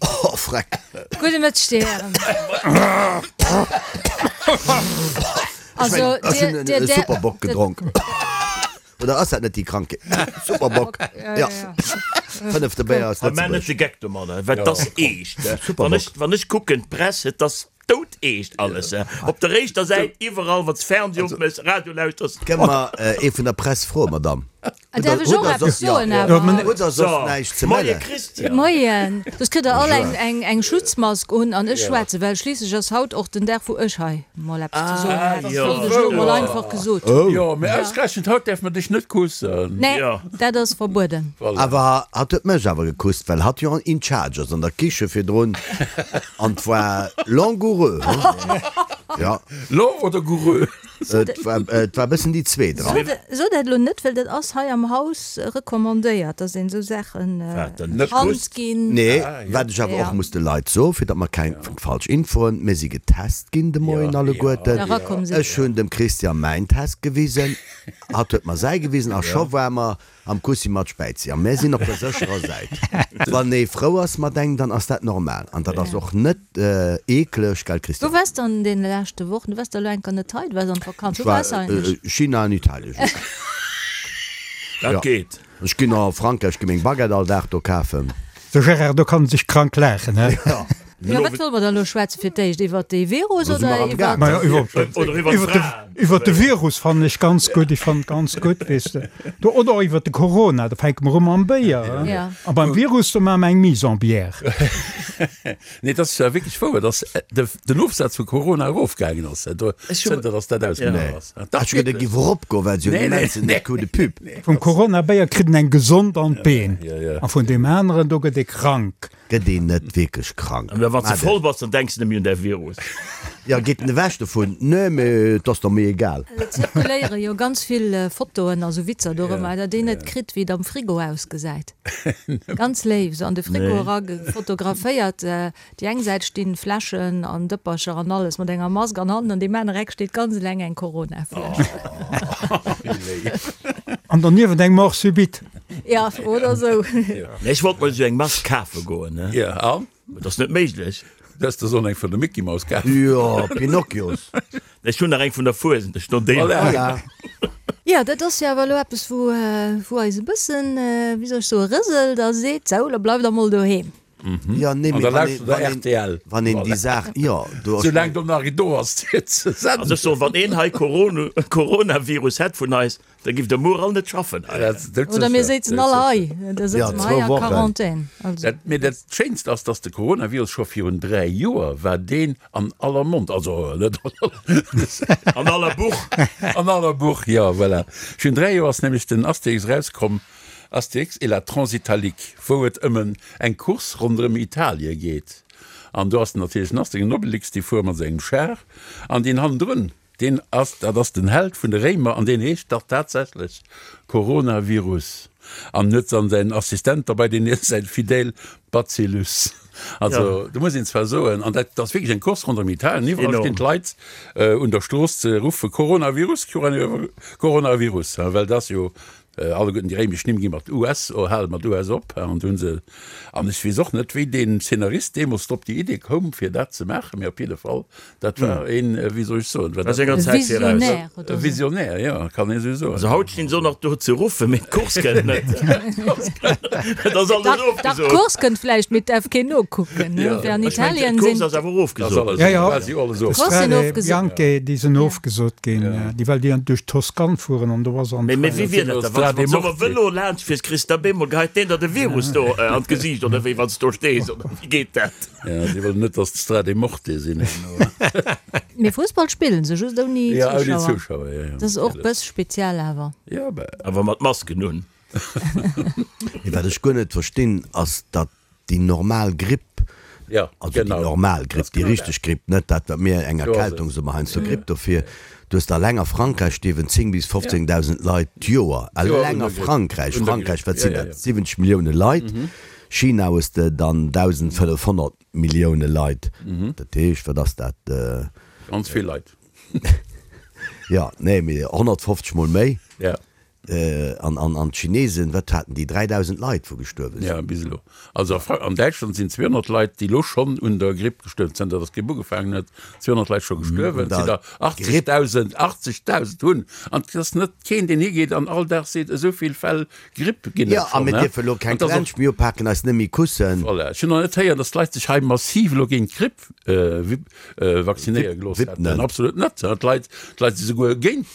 Oh, freck. Gudde Mëtteg, Dir Hären. Also, Ech hunn dir, e dir, Superbock gedronk. Oder ass dat net déi Krankheet? Superbock. Ja. Fënnefte Béier aus Mä net Lëtzebuerg. de Geck domadder, well 't ass eescht. Wann Superbock. ech, wann ech kucken, d'Press, et ass doudeescht alles. Op der éischter Säit, iwwerall, wann s Fernseh opméchs, Radio lauschters. Kënne mer ee vun der Press froen, Madame? Däerf ech och eppes soen awer? Hutt Der soss näischt ze Moie mellen? Christian. Moien. Soss kritt der all eng, eng, eng Schutzmask un an ech schwätzen, well schliisslech ass haut och den Dag, wou ech hei mol eppes ze soen hätt. Dat wollt ech elo mol einfach gesot hunn. Jo, mee ausgerechent haut däerf mer dech net kussen. Nee, dat ass verbueden. Awer hatt huet mech awer gekusst, well hatt jo in charge ass an der Kiche virdrun an 't war langoureux, hm? Ja. Long oder goureux? Et war, et war e bëssen déi zweet dran. So dat elo net, well dat ass hei am Haus recommandéiert, dass een esou Saachen d'Hand ginn. Nee, wat ech awer och muss de Leit soen, fir datt mer keng falsch Infoen, mir si getest ginn de Moien alleguerten. Ech hunn dem Christian mäin Test gewisen, hatt huet mer säi gewisen a scho war mer Am Kussi mat Späizi. A mär sinn op der sécherer Säit. Wann ee frou ass mat engem, dann ass dat normal. An dat ass och net eekleg, gell Christian? Wou waars de an deene leschte Wochen? Du waars der elo enker net hei, du waars an Vakanz. Ech Wou war waars eigentlech? China an Italien just. Dat geet. Ech ginn a Frankräich, gi meng Baguette all Dag do kafen. De Gérard, do kann en sech krank laachen, he? Jo. Jo, wat solle mer dann elo schwätzen fir d'éischt? Iwwert dee Virus oder iwwert. Majo, iwwert de Virus fannen ech ganz gutt. Ech fannen et ganz gutt, weess de. Do, oder och iwwert de Corona, da fänke mer u mam Béier, he? A beim Virus, do maache mer eng Mise en bière. Nee, et ass wierklech wouer, dass den Ofsaz vu Corona erofgaangen ass, zënter dass dat ausgebrach ass. Ech huet e giff eropgoen, well se jo immensen Coup de pub. Vum Corona-Béier kritt en eng gesond an d'Been, a vun deem aneren, do gëtt ee krank. Gëtt een net wierklech krank? An wann s de voll bass, dann denks de net méi un däi Virus. Jo, geet en ewech dovun? Nee, mee et ass der méi egal. Et zirkuléiere jo ganz vill Fotoen a sou Witzer dorëmmer, datt een net kritt, wéi et am Frigo ausgesäit. Ganz léif, sou an de Frigo era fotograféiert. Déi eng Säit stinn Fläschen an Dëppercher an alles mat enger Mask an hannen an deem aner Eck steet ganz eleng eng Corona-Fläsch. An doniewent eng Mort subite. Ja, oder sou. Nee, ech wollt mol esou eng Mask kafe goen, ne? Ja, an? Mee dat ass net méiglech. Du häss der sollen eng vun der Mickey Mouse kafen. Jo, Pinocchios. Ech hunn nach eng vun der Fuesent, ech no deem. Voilà. Jo, dat ass jo awer elo eppes, wou, wou eis e bëssen, wéi soll ech soen, rëselt a seet, Sou, lo bleift der mol doheem. Jo, nee, An mee da wann een, lauschtert der wann een, rtl. wann een déi Saach, jo, do ass. Soulaang do nach een do ass, fir ze Also ech senden. soen, wann een hei Corona, Coronavirus hätt vun eis, Da giff der muer all net schaffen hei. Oder mir séizen all hei, da sëtze mer hei a Quarantän. Mee dat Schéinst ass, dass de Coronavirus scho virun 3 Joer war deen an aller Mond, also net an aller Buch. An aller Buch, jo, voilà. Virun 3 Joer ass nämlech den Astérix erauskomm, Astérix et la Transitalique, wou et ëm eng Course ronderëm Italie geet. An do ass natierlech den Astérix an Obelix, déi fuere mat sengem Char an deen hannendrun, Deen ass, dat ass den Held vun de Réimer an deen heescht dach tatsächlech Coronavirus an huet dann säin Assistent derbei, deen heescht säin Fidel Bacillus. Also do muss een zwar soen, an dat ass wierklech eng Course ronderëm Italien, iwwerall stinn d'Leit un der Strooss ze ruffe Coronavirus, Coronavirus, well dat ass jo Alleguerten déi réimesch Nimm gi mat US, o hale mat US op, an do hu se, an ech weess och net, wéi deen Szenarist deemools drop déi Idee koum, fir dat ze maachen, mee op jidde Fall, dat war een, wéi soll ech soen, war A dat senger Zäit viraus. Visionnaire oder e sou. Visionnaire, jo, kann een esou soen. Also haut stinn se och nach do ze ruffen, mee d'Course kënnt net. Et ass alles Dach, dach, ofgesot. d'Course kënnt vläicht, mee et däerf keen nokucken, ne? Fir an Ech mengen, Italien d'Course sinn. ass awer Ass ofgesot. alles, Ja, ja. quasi alles ofgesot. D'Course sinn Strade ofgesot. Bianche, déi sinn ofgesot ginn, déi well déi duerch d'Toscane fueren an do ass an. Mee wéi wier dat da, wann s de mat sou e Vëlo laanscht fiers, kriss de op eemol, geheit deen der de Virus do an d'Gesiicht oder wéi, wann s do stees, oder wéi geet dat? Ja, si wëllen net, datt d'Strade Morte sinn herno. Mee Fussball spillen se just ouni Ja, ouni Zuschauer. Zuschauer, ja, ja. Dat ass och bëss speziell awer. Ja, bah. Awer mat Masken un. Mee wat ech guer net verstinn, ass datt déi normal Gripp, Ja, also déi genau. normal Gripp, Ass déi genau richteg dat. Gripp, net dat wat mir eng Do ass Erkältung et. soe mer heiansdo Gripp dofir, du hues eleng a Frankräich stierwen 10 bis 15.000 Leit d'Joer, D'Joer un eleng der a Gripp. Frankräich, Un der Frankräich, Gripp, wat ja, sinn ja, dat, ja. 70 Millioune Leit, China hues de dann 1.500 Millioune Leit, dat heescht, wat ass dat? Ganz vill Leit. Jo, nee, mee 150 mol méi. Ja. An an d'Chinesen, wat haten déi, 3.000 Leit, wou gestuerwe sinn? Jo, bis elo. Also an Däitschland sinn 200 Leit, déi elo schonn un der Gripp gestuerwen sinn, zënter datt d'Gripp ugefaangen huet, 200 Leit scho gestuerwen. Et sinn der 80.000, 80.000 hunn. An et ass net keen, deen higeet an all Dag seet, esou vill Fäll Gripp ginn et schonn. Jo, a mir dierfe elo keng Klensch méi upaken, eis net méi kussen. Voilà. Ech hunn nach net héieren, datt d'Leit sech hei massiv elo géint d'Gripp vaccinéiere gelooss hätten. Absolut net. D'Leit, d'Leit si souguer géint,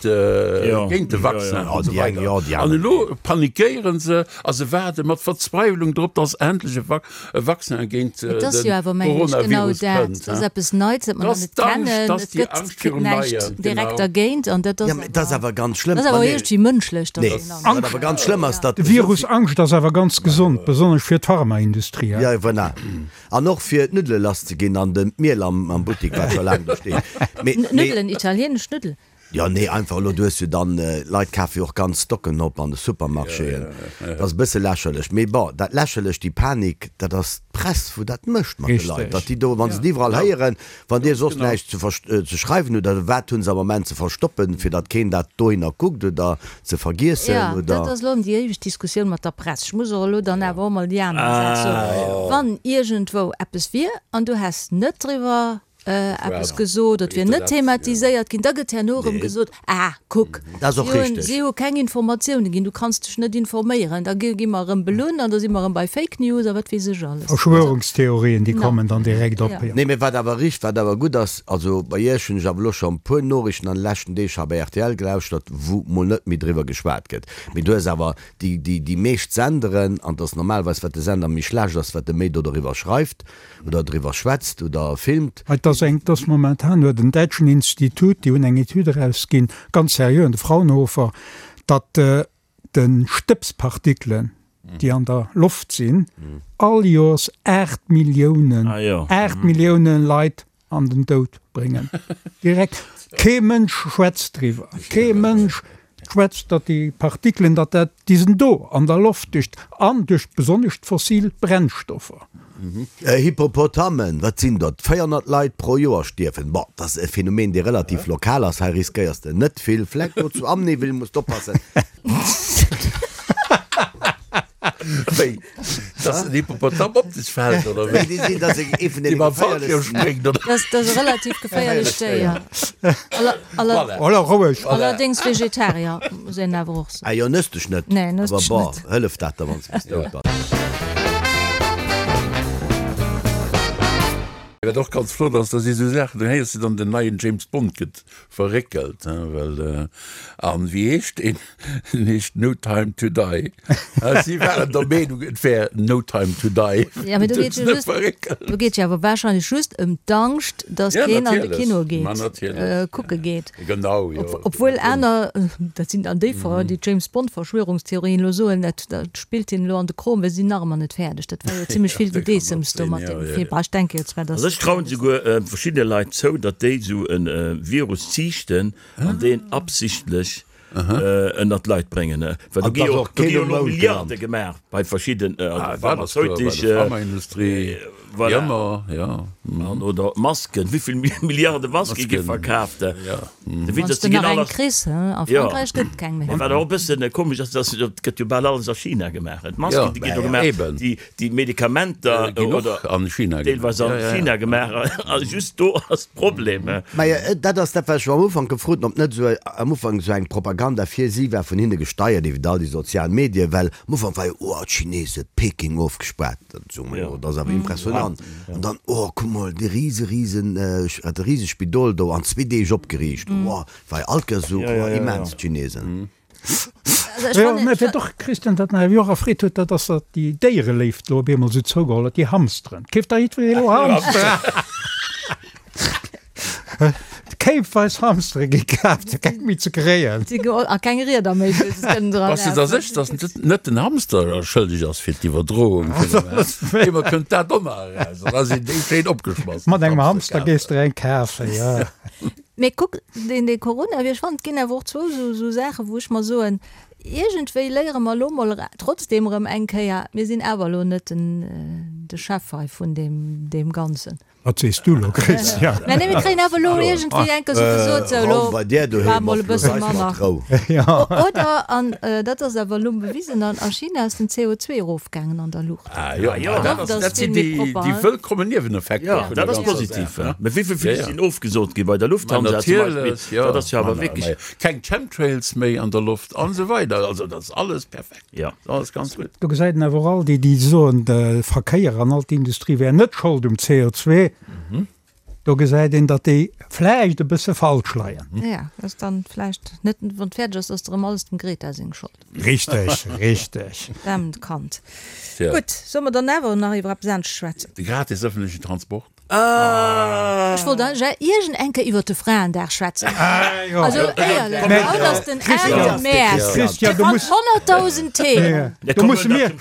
géint de Vaccin an esou weider. An elo panikéiere se a se waarde mat Verzweiwlung drop, dass endlech e e Vaccin géint Et de ass jo awer, mengen ech, genau Coronavirus dat. kënnt. Et ass eppes Neits, dat mer Dat nach ass net d'Angscht, kennen. dat ass Et déi gëtt Angscht virum näischt Neien, direkt genau. dergéint an dat ass Ja, mä dat ass awer, awer ganz schlëmm. dat ass Ma awer nee. iergendwéi mënschlech, dass Nee, een Angscht wat awer ganz schlëmm ass, datt De esou Virus vill. Angscht ass awer ganz gesond, besonnesch fir d'Pharmaindustrie. Ja, voilà. An och fir d'Nuddele lass ze ginn an den d'Miel am am Buttik wat scho laang do steet. Mee mee. Nuddelen, italienesch Nuddelen. Jo nee einfach elo du hues jo dann, Leit kafe jo och ganz Stocken op an de Supermarchéen. Dat ass e bësse lächerlech. Mee bon, dat lächerlech, déi Panik, dat ass d'Press wou dat mécht mat de Leit, datt déi do, wa se et iwwerall héieren, Wann Dir soss näischt ze schreiwen hutt, oder wat hunn se am Moment ze verstoppen, fir datt keen dat dohinner kuckt oder ze vergiessen, Jo, oder? dat ass elo ëm déi éiweg Diskussioun mat der Press. Ech muss och elo dann awer och mol déi aner Säit soen. Wann iergendwou eppes wier an du häss net driwwer eppes gesot, et wier net thematiséiert ginn, da gëtt herno erëm gesot, Ah, kuck, Dat ass och si hunn, richteg. si hu keng Informatioune ginn, du kanns dech net informéieren. Da gi gi mer erëm belunn an da si mer erëm bei Fake News a wat weess ech alles. Verschwörungstheorien, déi kommen dann direkt op, jo. Nee, mee wat awer richt, wat awer gutt ass, also bei Iech hunn ech awer elo scho e puer Noriichten an de leschten Deeg hei bei rtl gelauschtert, wou mol net méi driwwer geschwat gëtt. Mee du hues awer déi, déi, déi meescht Senderen, an et ass normalerweis, wat de Sender méi schlecht ass, wat e méi do doriwwer schreift, oder driwwer schwätzt oder filmt. Et ass eng, et ass momentan huet en däitschen Institut, déi hunn eng Etüd erausginn, ganz seriö, de Fraunhofer, datt de Stëbspartikelen, déi an der Loft sinn, all Joers 8 Milliounen, 8 Milliounen Leit an den Doud bréngen. Direkt. Kee Mënsch schwätzt driwwer. Kee Mënsch schwätzt, datt déi Partikelen, datt dat, déi sinn do an der Loft duerch, an duerch besonnesch d'fossil Brennstoffer. Hippopotamen, wat sinn dat? 400 Leit pro Joer stierwen. Bon, dat ass e Phänomen, dee relativ lokal ass. Hei riskéiers de net vill. Vläicht do zu Amnéville muss d'oppassen. Wéi? Dass den Hippopotam op dech fält, oder wéi? Nee, déi sinn, dass ee vun Déi deene mam Fallschirm geféierlechsten. spréngt, oder? Dat ass e relativ geféierlecht Déier. Voilà. Voilà, roueg. Allerdéngs Vegetarier, muss een awer och soen. Ah jo, nëss dech net. Nee, nëss Awer dech bon, net. hëlleft dat der, wann s de bis dout bass? Wat och ganz flott ass, da si sou Saachen, do héiers de dann, den neien James Bond gëtt verréckelt, hein, well, an wéi heescht deen? En heescht No Time to Die. Si waren der Meenung, et wär No Time to Die. Ja, mee do geet jo just, do geet jo awer wahrscheinlech just ëm d'Angscht, datt Ja, keen an de natierlech. Kino Ma geet, natierlech. kucke geet. Genau, jo. Ob, obwuel aner, dat sinn dann déi, déi James Bond Verschwörungstheorien elo soen, dat, dat spillt hinnen elo an de Krom, well si sinn nach ëmmer net fäerdeg. Dat war jo zimmlech vill Gedeessems do mat deem Film. Ah, ech denke jo zwar, datt. Also ech trauen souguer verschiddene Leit zou, datt déi esou e Virus ziichten an deen absichtlech ënnert d'Leit bréngen. Well do An gi dass jo och do gi keen jo um elo Mound Milliarde gelant. gemaach bei verschidden Ah, dat ass kloer, bei der pharmazeutesche, Pharmaindustrie, wéi voilà, ëmmer, jo. an oder Masken, wéivill Milliarde Maske gi Masken, verkaaft? jo. De Wann Witz s ass, de déi ginn nach all eng a kriss, he? A jo. Frankräich gëtt et keng méi. Mä wat och e bëssen komesch ass, dass et gëtt jo bal alles a China gemaach. D'Masken, Jo, déi ginn do ja, gemaach, eben. déi, déi Medikamenter Ginn och oder an China gemaach. deelweis an Ja, ja, ja. China gemaach, a just do ass d'Problem. Mä dat ass dat, wat ech am Ufank gefrot hunn, ob net esou am Ufank esou eng Propaganda fir si war, vun hinne gesteiert iwwer all déi sozial Medien, well am Ufank war jo, oh, d'Chinesen, Peking ofgespaart, dat soe mer jo, dat ass awer impressionant. An dann, oh, kuck mol, dee rise, risen, dat rise Spidol do an zwee Deeg opgeriicht, oh, war jo all Kéiers esou, oh, immens, d'Chinesen. Jo, mä wat och, Christian, wat mech awer och erfreet huet, dat ass, datt déi Déiereléift elo op eemol esou zougeholl huet, déi Hamsteren. Keeft da jiddweree elo Hamsteren? Kéipweis Hamstere gi kaaft, fir keng méi ze kréien. A keng Rieder méi, wou se kënnen dran Bass de der sécher, datt net den Hamster schëlleg ass fir d'Iwwerdroung vun dem Eemol kënnt dat och nach eraus, an da sinn déi schéin opgeschmass, Mat engem Hamster gees de eng kafen, jo. Mee kuck, deen dee Coronavirus, ech fannen, et ginn awer och zwou esou esou Saachen, wou ech mer soen, iergendwéi léiere mer elo mol trotzdem erëm eng Kéier, mir sinn awer elo net den de Chef hei vun deem deem Ganzen. Wat sees du elo, Christian? Mä nee, mir kréien awer elo iergendwéi eng Kéier sou gesot, sou elo Raum bei där doheem war mol ass e bësse elo eis manner. mat Rou. Oder, an dat ass awer elo bewisen, an a China ass den CO2 erofgaangen an der Luucht. Ah jo, Ah jo. dat ass, D'Loft ass dat vill sinn méi déi, propper, déi hein? wëllkommen Nieweneffekter Jo, vun dat der ass ganzer positiv. Saach, ne? Mä wéi vill Ja, Flich ja. sinn ofgesot gi bei der Ma Lufthansa zum Beispill? natierlech, jo. Dat ass jo Ma awer na, wierklech. ma keng Chemtrails méi an der Loft an esou weider. Also dat ass alles perfekt. Jo. Alles ganz gutt. Do gesäit een awer och all déi, déi soen, de Verkéier an all d'Industrie wär net Schold um CO2, do gesäit een, datt déi vläicht e bësse falsch leien. Jo, dat ass dann vläicht net, wann et fäerdeg ass, ass et erëm alles dem Greta seng Schold. Richteg, richteg. Daarmt Kand. Gutt, solle mer dann awer nach iwwer eppes anescht schwätzen? De gratis ëffentlechen Transport. Ech wollt eigentlech iergend eng Kéier iwwert de Fraendag schwätzen. Also éierlech, haut ass den 8 Mäerz. Christian, Dir fannt 100.000 Themen. Do musse mir,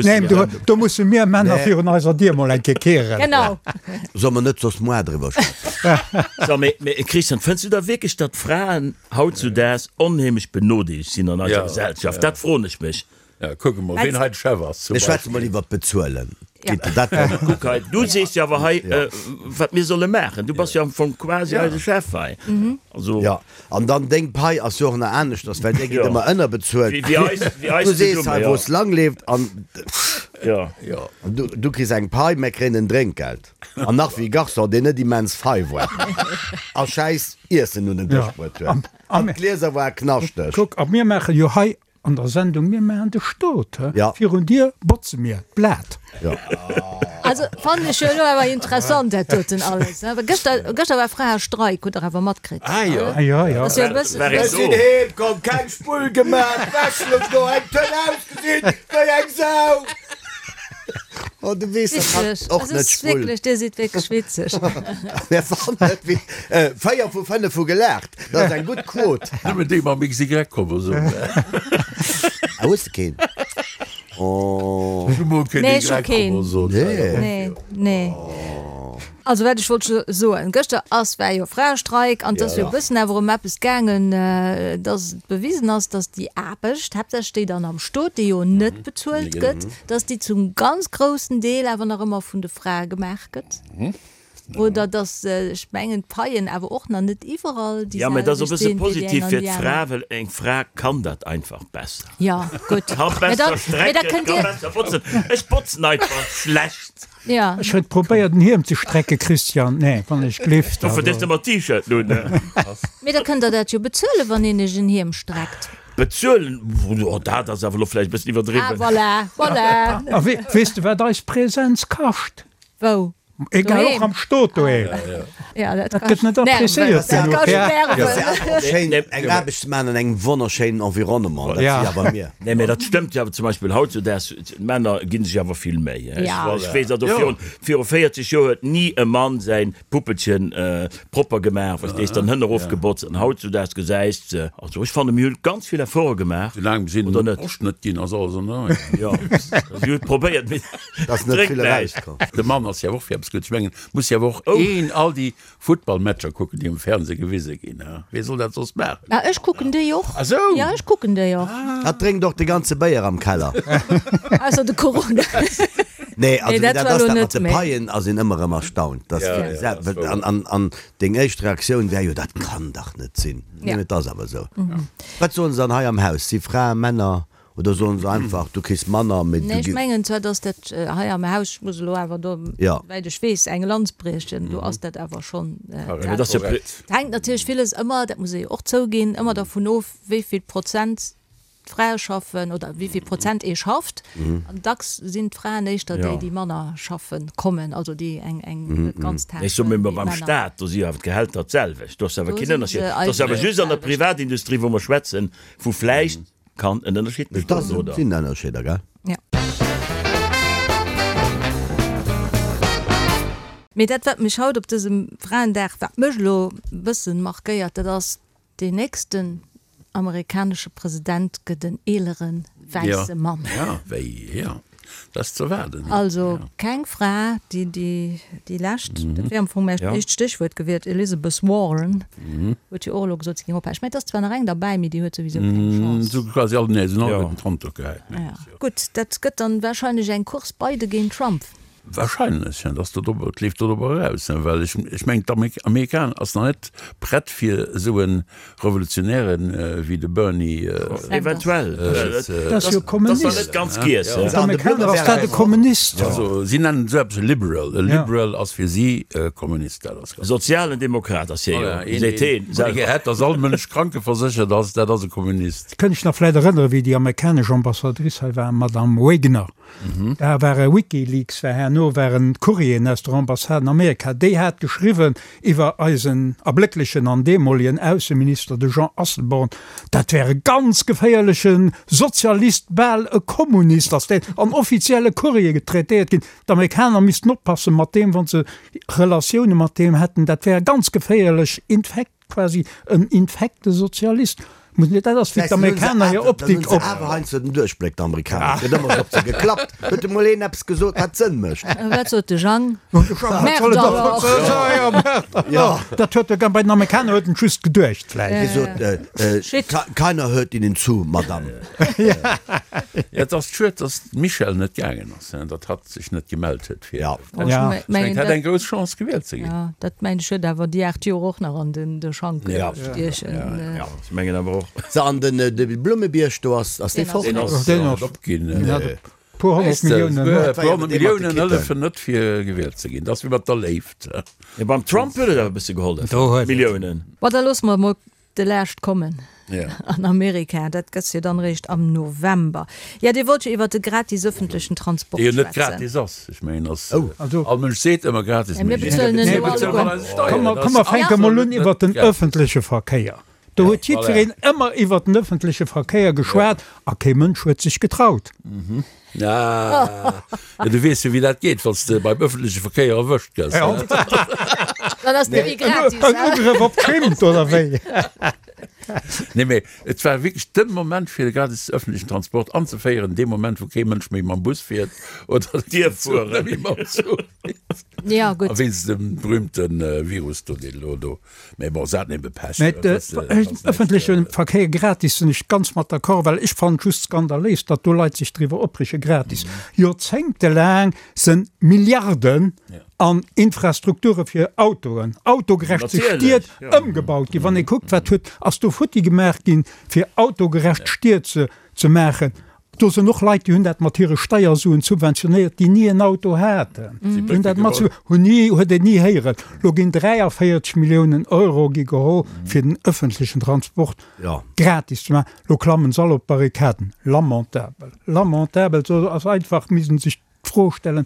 neen, do musse mir Männer virun eiser Dier mol eng Kéier kehren. Genau. Solle mer net soss moar driwwer schwätzen? So, mee, mee Christian, fënns du da wierklech, datt d'Fraen hautzudaags onheemlech benodeelegt sinn an eiser Gesellschaft? Dat froen ech mech. Ja, kucke mol, ween hei de Chef ass. Mir schwätze mol iwwer d'Bezuelen. Ja. Kuck hei, du sees jo awer hei, wat mir solle maachen. Du bass jo am Fong quasi eise Chef hei. Also. Ja, an dann deng Pai ass jo och nach aneschters, well där gitt ëmmer ënnerbezuelt. Wéi eis, wéi eis Du sees zesumme, hei, ja. wou es lang leeft an Ja. Ja. du, du kriss eng Pai, mir kréien en Drénkgeld. An nach wéi Garçon, deen net immens fei war a schäiss Iessen un den Dësch bruet huet. An d'Glieser ware knaschteg. Kuck, a mir maache jo hei An der Sendung Mir maachen de Stot, Ja. virun dir botze mir d'Blat. Ja. Also fannen ech jo elo awer interessant dat doten alles. Awer gëschter, gëschter war Fraestreik, hutt der awer matkritt? Ah jo. Ah jo, jo. Ass jo e bëssen. War een Ech sinn do? heem komm, keng Spull gemaach, d'Wäsch louch do, eng Tönn ausgesinn wéi eng Sau. Oh, du weess, dat hat Witzeg. och Also net es ist Spull. wierklech, dir sidd wierklech witzeg. Mir fannen et wéi, 4 vu 5 hu gelaacht. Dat ass eng gutt Quot. Nëmmen déi mam XY-Chromosom. Ah, hues de keen? Oh. Ech hu mol keen Nee, ech hu keen. Y-Chromosom. Nee. Nee, nee. Also wat ech wollt soen, gëschter ass, war jo Fraestreik an et ass jo e bëssen awer ëm eppes gaangen, dass et bewisen ass, dass déi Aarbecht, haaptsächlech déi dann am Stot, déi jo net bezuelt gëtt, dass déi zum ganz groussen Deel awer nach ëmmer vun de Frae gemaach gëtt. Oder dass, ech mengen, d'Paien awer och nach net iwwerall déi Ja, mä dat ass e selwecht bësse sinn wéi déi positiv eng an fir déi d'Fra, aner. well eng Fra kann dat einfach besser. Ja, gutt. Ka Mä besser da, mä da strecken, kënnt ka Dir. besser botzen. Ech botzen einfach schlecht. Ja. Ech huet probéiert en Hiem ze strecke Christian, nee wann ech glift. Dofir dierfs de mer T-Shirt un. Mee da kënnt der dat jo bezuelen, wann een iech en Hiem streckt. Bezuelen, oh dat ass awer elo vläicht e bëssen Ah, iwwerdriwwen. voilà, voilà. A weess de wat eis Präsenz kascht? Wou? Egal, och Doheem. am Stot doheem. Ja, dat Dat gëtt net appréciéiert Dat genuch. kascht Ja. Nerven. Schéin eng Aarbecht ze maachen an engem wonnerschéinen Environnement, dat Ja. si awer mir. Nee, mä dat stëmmt jo awer zum Beispill hautzudaags, d'Männer gi sech awer vill Méi. Ech Ja. ech weess also, virun, viru 40 Joer huet ni e Mann säin Puppelchen propper gemaach, verstees de, an Hënn erofgebotzt an hautzudaags gesäis de, also ech fanne mir hunn ganz vill Efforte gemaach, Soulaang si oder net? Posch net ginn, ass alles an der Rei. Jo, si hunn et probéiert, mee Dass net drénkt vill näischt. erauskomm. De Mann ass jo och fir eppes gutt. Ech mengen, muss jo awer och een all déi Futtballmatcher kucken, déi um Fernseh gewise ginn. Wee soll dat soss maachen? Ah, ech kucken déi och. Ah sou! Ja, ech kucken déi och. Hatt drénkt och de ganze Béier am Keller. Ausser de Corona. Nee, also Nee, wéi dat dat war ass, elo dat mat net de méi. Paien ass een ëmmer erëm erstaunt. Dass Ja, wéi ja, gesagt, dat ass an, an, an deng éischt Reaktioun wär jo, dat kann dach net sinn. Nee, Ja. mee et ass awer esou. Wat soen se dann hei am Haus? Si Fraen, Männer oder soen se einfach, du kriss manner, mee Nee, du ech gi. mengen zwar, dass dat hei am Haus, ech muss elo awer do, Ja. souwäit ech weess, eng Lanz briechen, do ass dat awer schonn Mee dat ass jo Korrekt. Et hänkt natierlech villes ëmmer, dat muss ee jo och zouginn, ëmmer dervun of, wéi vill Prozent d'Frae schaffen oder wéi vill Prozent ee schafft. An dacks sinn d'Fraen éischter déi, déi manner schaffe kommen, also déi eng eng net ganztag Ech soe mir wéi beim d'Männer. Staat, do si jo awer d'Gehälter d'selwecht, do ass awer Do keen si Ënnerscheed. se Et ass awer eigentlech just an der d'selwecht. Privatindustrie, wou mer schwätzen, wou vläicht kann en Ënnerscheed Et bestoen, oder? sinn Ënnerscheeder, gell? Ja. Mee dat, wat mech haut op dësem Fraendag, wat mech elo e bëssen markéiert, dat ass, Deen nächsten amerikanesche President gëtt en eelere wäisse Mann. Ja, wéi, ja, dat ass ze erwaarden. Also keng Fra, déi déi lescht, dat wier am Fong mäi éischt Stéchwuert gewiert, Elizabeth Warren huet jo och elo gesot, si géing ophalen. Ech mengen, et ass zwar nach eng derbäi, mee déi huet souwisou keng Chance. Sou quasi all, nee, se hunn alleguerten d'Hand do gehäit. Gutt, dat gëtt dann wahrscheinlech eng Course Biden géint Trump. Wahrscheinlech, dat ass do drop, et leeft do drop eraus, well ech, ech mengen d'Amerikaner ass nach net prett fir esou e Revolutionäre wéi de Bernie. Eventuell. Dat ass jo Kommunist. Dat ass nach net ganz giess. D'Amerikaner ass dat e Kommunist. Also si nennen esou eppes e Liberal. E Liberal ass fir si e Kommunist. Dat ass ganz. Sozialen Demokrat ass hie jo, seet heen selwer. Dee gär hätt, datt all Mënsch krankeverséchert ass, dat ass e Kommunist. Kënnt ech nach vläit erënnere wéi déi amerikanesch Ambassadrice hei war, Madame Wagner. Da ware Wikileaks war herno waren Courrieren aus der Ambassade an Amerika, déi hat geschriwwen iwwer eisen erblécklechen an deemolegen Ausseminister, de Jean Asselborn, dat wär e ganz geféierleche Sozialist, bal e Kommunist, ass deen an offizielle Courriere traitéiert ginn. D'Amerikaner missten oppasse mat deem, wa se Relatioune mat deem hätten, dat wär e ganz geféierlech Infekt. Quasi en infekte Sozialist. Muss net, dat ass wéi d'Amerikaner hir Optik op. Awer heiansdo den Duerchbléck, d'Amerikaner. Et gëtt ëmmer op se geklappt. Huet emol een eppes gesot, wat Sënn mécht? Wat sot de Jang? Merde alors! Jo, dat huet e bei den Amerikaner huet en just geduecht vläicht. Hie sot, Shit. Keiner hört Ihnen zu, Madame. Ja, et ass schued, datt d'Michèle net gaangen ass, datt hatt sech net gemellt huet fir. Ja. Oh, ja. Ech mengen, hätt eng grouss Chance gewielt ze ginn. Ja, dat mengen ech huet awer déi 8 Joer och nach an den de Schank ja. stiechen. Ja, ja. Ja, ech mengen awer och. So, an den de Blummebierg do ass ass dee fort? Deen ass, deen ass opginn. Puer 100 Milliounen. Puer 100 Milliounen hëllefen net fir gewielt ze ginn. Dat ass wéi mat der Léift. Ja, beim Trump huet et awer e bësse gehollef. Milliounen. Bon, da loosse mer emol De Laascht kommen an Amerika, dat gëtt jo dann eréischt am November. Jo, Dir wollt jo iwwert de gratis ëffentlechen Transport Dee jo net schwätzen. gratis ass. Ech mengen, ass, all Mënsch seet ëmmer gratis, Mä mir bezuelen en elo alleguer. Komm, mer fänke mol un iwwert den ëffentleche Verkéier. Do huet jiddwereen ëmmer iwwert den ëffentleche Verkéier geschwat a kee Mënsch huet sech getraut. Ah, ja, du weess jo, wéi dat geet, wann s de beim ëffentleche Verkéier erwëscht gëss. Dann ass net méi gratis. En Ugrëff op d'Schimmt, oder wéi? Nee, mee et war wierklech de Moment, fir de gratis ëffentlechen Transport anzeféieren, dee Moment, wou kee Mënsch méi mam Bus fiert oder dierf fueren. Méi mam Zuch fiert. Ja, gutt. A wéinst dem berühmte Virus do, deen elo do Mee bon, se haten ebe Pech. Mä de ëffentleche Verkéier gratis sinn ech ganz mat d'accord, well ech fannen et just skandaléis, datt do Leit sech driwwer opreege gratis. Joerzéngtelaang se Milliarden an Infrastrukture fir Autoen, autogerecht Stied ëmgebaut ginn. Wann ee kuckt, wat huet, ass do futti gemaach ginn, fir autogerecht Stied ze maachen. Do sinn och Leit, déi hunn dat mat hire Steiersuen subventionéiert, déi ni en Auto haten. Déi hunn dat mat, hunn ni, huet een ni héieren. Lo ginn 43 Milliounen Euro gi geholl, fir den ëffentlechen Transport gratis ze maachen. Lo klammen se all op d'Barrikaden. Lamentabel, lamentabel. Do ass einfach, misst een sech d'Fro stellen,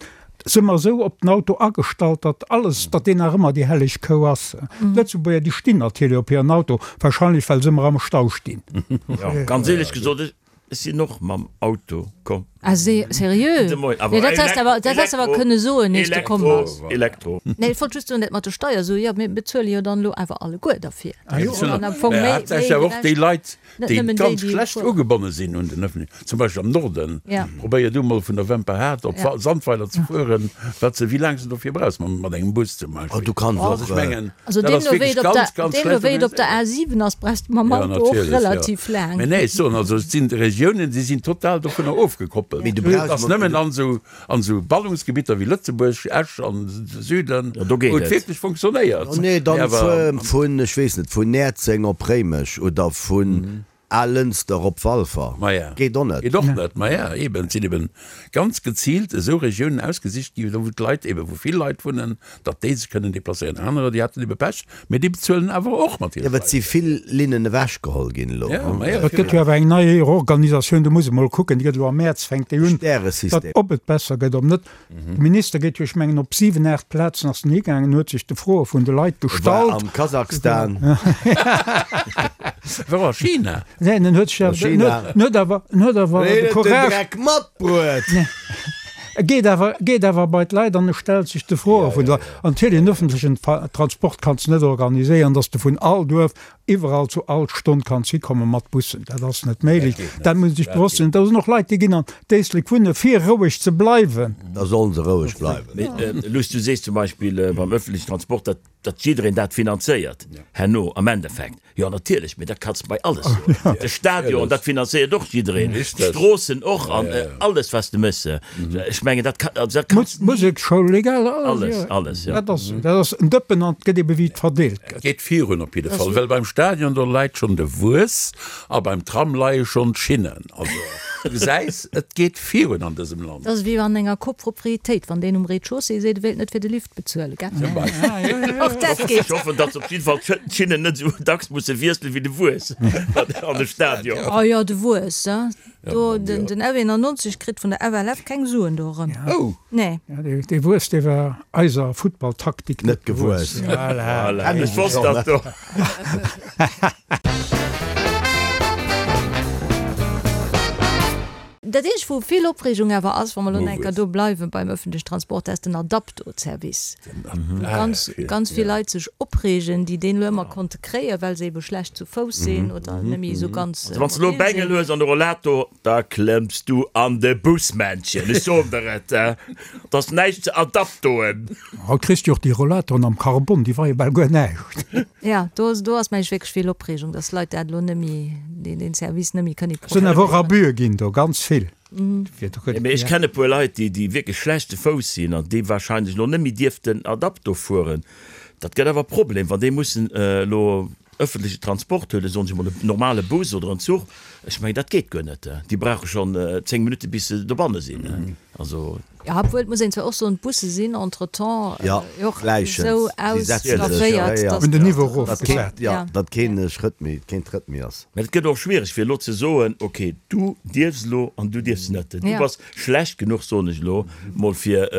Si mer esou op den Auto agestallt, datt alles, datt deen nach ëmmer déi helleg Kou ass? D'Lëtzebuerger, déi stinn natierlech op hiren Auto, wahrscheinlech well se ëmmer am Stau stinn. Jo, ganz éierlech gesot, ech sinn och mam Auto komm. Ah, seriö? De Moien. Nee, dat häss de awer, dat häss de awer kënne soen, ier s de komm bass. Elektro, Elektro. Nee, ech wollt just soen, dat mat de Steiersuen, jo, mir bezuele jo dann elo awer alleguer derfir. Ah jo. An am Fong méi, méi Haaptsächlech awer och déi Leit, Net déi nëmmen déi, ganz déi schlecht fueren. ugebonne sinn un den öffentlichen, zum Beispill am Norden, Ja. probéier du mol vun der Wemperhaart op Ja. Sandweiler ze fueren, wat se, wéi laang s de dofir brauchs mam, mat engem Bus zum Oh, Beispill. du kanns Also och, ech mengen, Also dat ass deemno wéi wierklech et op ganz, der, ganz deemno schlecht wéi et op der organiséiert. A7 ass, brauchs de mam Ja, Auto och natierlech, ja. relativ laang. Mee nee, ech soen also, et sinn Regiounen, déi sinn total dovunner ofgekoppelt. Mee du Et brauchs ass nëmmen an esou, an esou Ballungsgebitter wéi Lëtzebuerg, Esch an de Süden, Ja, do geet wou et et. wierklech funktionéiert. Oh nee, dann Mee awer fuer vun, ech weess net, vun Näerzeng op Réimech oder vun Alënster op Walfer. Maja. Geet och net. Geet och net. Maja, eben, et sinn eben ganz geziilt esou Regiounen ausgesicht gi, do wou d'Leit eben, wou vill Leit wunnen, datt déi sech kënnen deplacéieren. Anerer, déi haten ebe Pech, mee déi bezuelen awer och mat hire Jo, well et si Steieren. vill Linnen ewechgeholl ginn elo. Ja, maja, Et gëtt jo awer eng nei Reorganisatioun, do muss ee mol kucken, déi gëtt elo am Mäerz, fänkt déi un, datt Stäresystem. ob et besser gëtt, ob net. De Minister geet jo, ech mengen, op 7, 8 Plazen ass en higaangen, huet sech de Froe vun de Leit War gestallt. am Kasachstan. War a China. Neen, en huet sech awer, en China. huet, en huet awer, en huet awer Hien de huet den Courage, Dreck matbruet. e geet awer, geet awer bei d'Leit an e stellt sech de Froe vun de Leit. An natierlech, en öffentlechen Transport kanns de net organiséieren, datt s de vun all Duerf iwwerall zu all Stonn kanns hikommen mat Bussen. Dat ass net méiglech. Dat muss ee sech bewosst sinn. Da sinn och Leit, déi ginn an d'Éislek wunne fir roueg ze bleiwen. Da sollen se roueg bleiwen. Mee Luss, du sees zum Beispill beim öffentlechen Transport, dat. Datt jiddereen dat finanzéiert herno am Endeffekt. Jo natierlech, mee dat kanns de bei alles soen. De Stadion, dat finanzéiert och jiddereen, d'Stroossen och an alles wat s de méchs. Ech mengen dat kann, also dat kanns ni. D'Museksschoul, egal, alles. Alles, alles, jo. Dat ass, dat ass en Dëppen an et gëtt ebe wéi et verdeelt gëtt. Et geet virun op jidde Fall, well beim Stadion do leit schonn de Wuess a beim Tram leie schonn d'Schinnen. Also du gesäis, et geet virun an dësem Land. Dat ass wéi an enger Copropriétéit, wann deen um Rez-de-chaussée seet, e wéilt net fir de Lift bezuelen, gell? Zum Beispill. Och dat geet. Ech hoffen, datt se op jidde Fall d'Schinnen net esou dacks musse wiesselen wéi de Wuess an de Stadion. Oh jo, de Wuess, hein. Do, den F91 kritt vun der FLF keng Suen do erëm. Oh! Nee. Dee Wuess, dee war eiser Futtballtaktik net gewuess. Voilà. Ech wosst dat do. Dat eenzegt, wou vill Opreegung awer ass, wa mer elo nach eng Kéier do bleiwen beim öffentlichen Transport, dat ass den Adapto-Service, wou ganz, ganz vill Leit sech opreegen, déi deen elo ëmmer konnte kréien, well se ebe schlecht zu Fouss sinn oder net méi esou ganz Also wann s de elo e mobil Bengel sinn. hues an e Rollator, da klëmms du an de Bus, Männchen, ech soen der et, et ass näischt ze adaptoen. Haut kriss de jo och déi Rollatoren am Carbon, déi weie bal guer näischt. Jo, do, do ass mengen ech wierklech vill Opreegung, dass Leit dat elo net méi, deen, deen Service net méi kënne Sinn awer och Abusë ginn do, ganz vill. Mee ech kennen e puer Leit, déi, déi wierklech schlecht ze Fouss sinn an déi wahrscheinlech elo net méi dierften Adapto fueren. Dat gëtt awer e Problem, wann déi mussen elo ëffentleche Transport huelen, soen ech emol en normale Bus oder en Zuch. Ech mengen, dat geet guer net. Déi brauche schonn 10 Minutte bis se dobanne sinn. Also. Jo, obwuel, et muss een zwar och soen, d'Busse sinn entretemps Jo, och gläichens. esou Si setzen sech, ausstafféiert, ja, ja. dass. Hunn den Niveau Datt keen, erofgesat. ja, datt keen Schrëtt méi, keen Trëtt méi ass. Mä et gëtt och schwiereg fir elo ze soen, ok, du dierfs elo an du dierfs net. Du Ja. bass schlecht genuch, soen ech elo mol, fir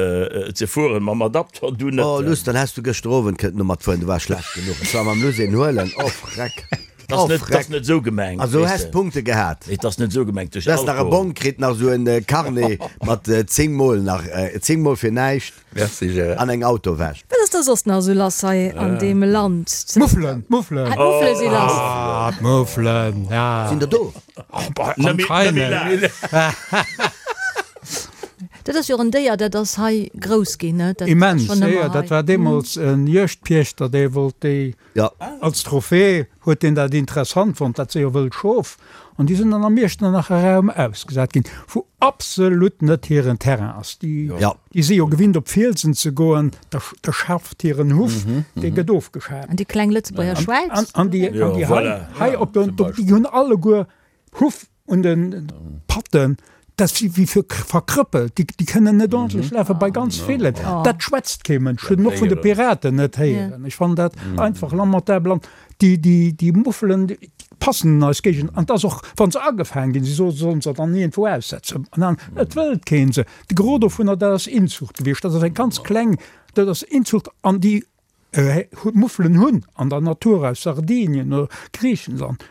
ze fueren mam Adapter, du net. Oh Luss, dann häss du gëschter Owend kënnten domat fueren, du waars schlecht genuch. Ech war mam Luss een huelen, oh Freck. Dat ass net, dat ass net esou gemengt. Also häss Punkte gehat. Et ass net esou gemengt duerch Du häss nach e Bong kritt, nach esou en Carnet mat 10 mol nach, 10 mol fir näischt. Merci Gérard. An eng Autowäsch. Wat ass da soss nach esou lass hei an deem Land? D'Muffelen, d'Muffelen. Ah, d'Muffele si lass. Ah, d'Muffelen, ja. Sinn der do? Anscheinend. Dat ass jo och en Déier, dat ass hei grouss ginn, ne? Dat ass Immens, schonn jo, ëmmer jo. hei. Dat war deemools en Juegdpiechter, dee wollt déi Ja. Als Trophée huet deen dat interessant fonnt, dat si jo wëll Schof, an déi sinn dann am Iechternacher Raum ausgesat ginn, wou absolut net hiren Terrain ass. Déi, Ja. déi si jo gewinnt op Fielsen ze goen, da, da schafft hiren Huff, dee gëtt ofgeschaaft. An déi kleng Lëtzebuerger Schwäiz. An, an déi, an Jo, déi hei, voilà. hei op den, Zum Beispill. déi hunn alleguer Huff un de Patten, dat si wéi fir verkrëppelt, déi, déi kënnen net ordentlech lafen, bei ganz villen. Dat schwätzt kee Mënsch, hunn och vun de Piraten net héieren. Ech fannen dat einfach lamentabel. An déi, déi, déi Muffelen, déi passen an eis Géigend. An et ass och, wa se agefaang ginn, si soe sollen se dann iergendwou aussetzen. An dann, et wëllt kee se. De Gros dovunner, dat ass Inzucht gewiescht. Dat ass eng ganz kleng, dat ass Inzucht. An déi Muffelen hunn an der Natur aus Sardinien oder Griichenland,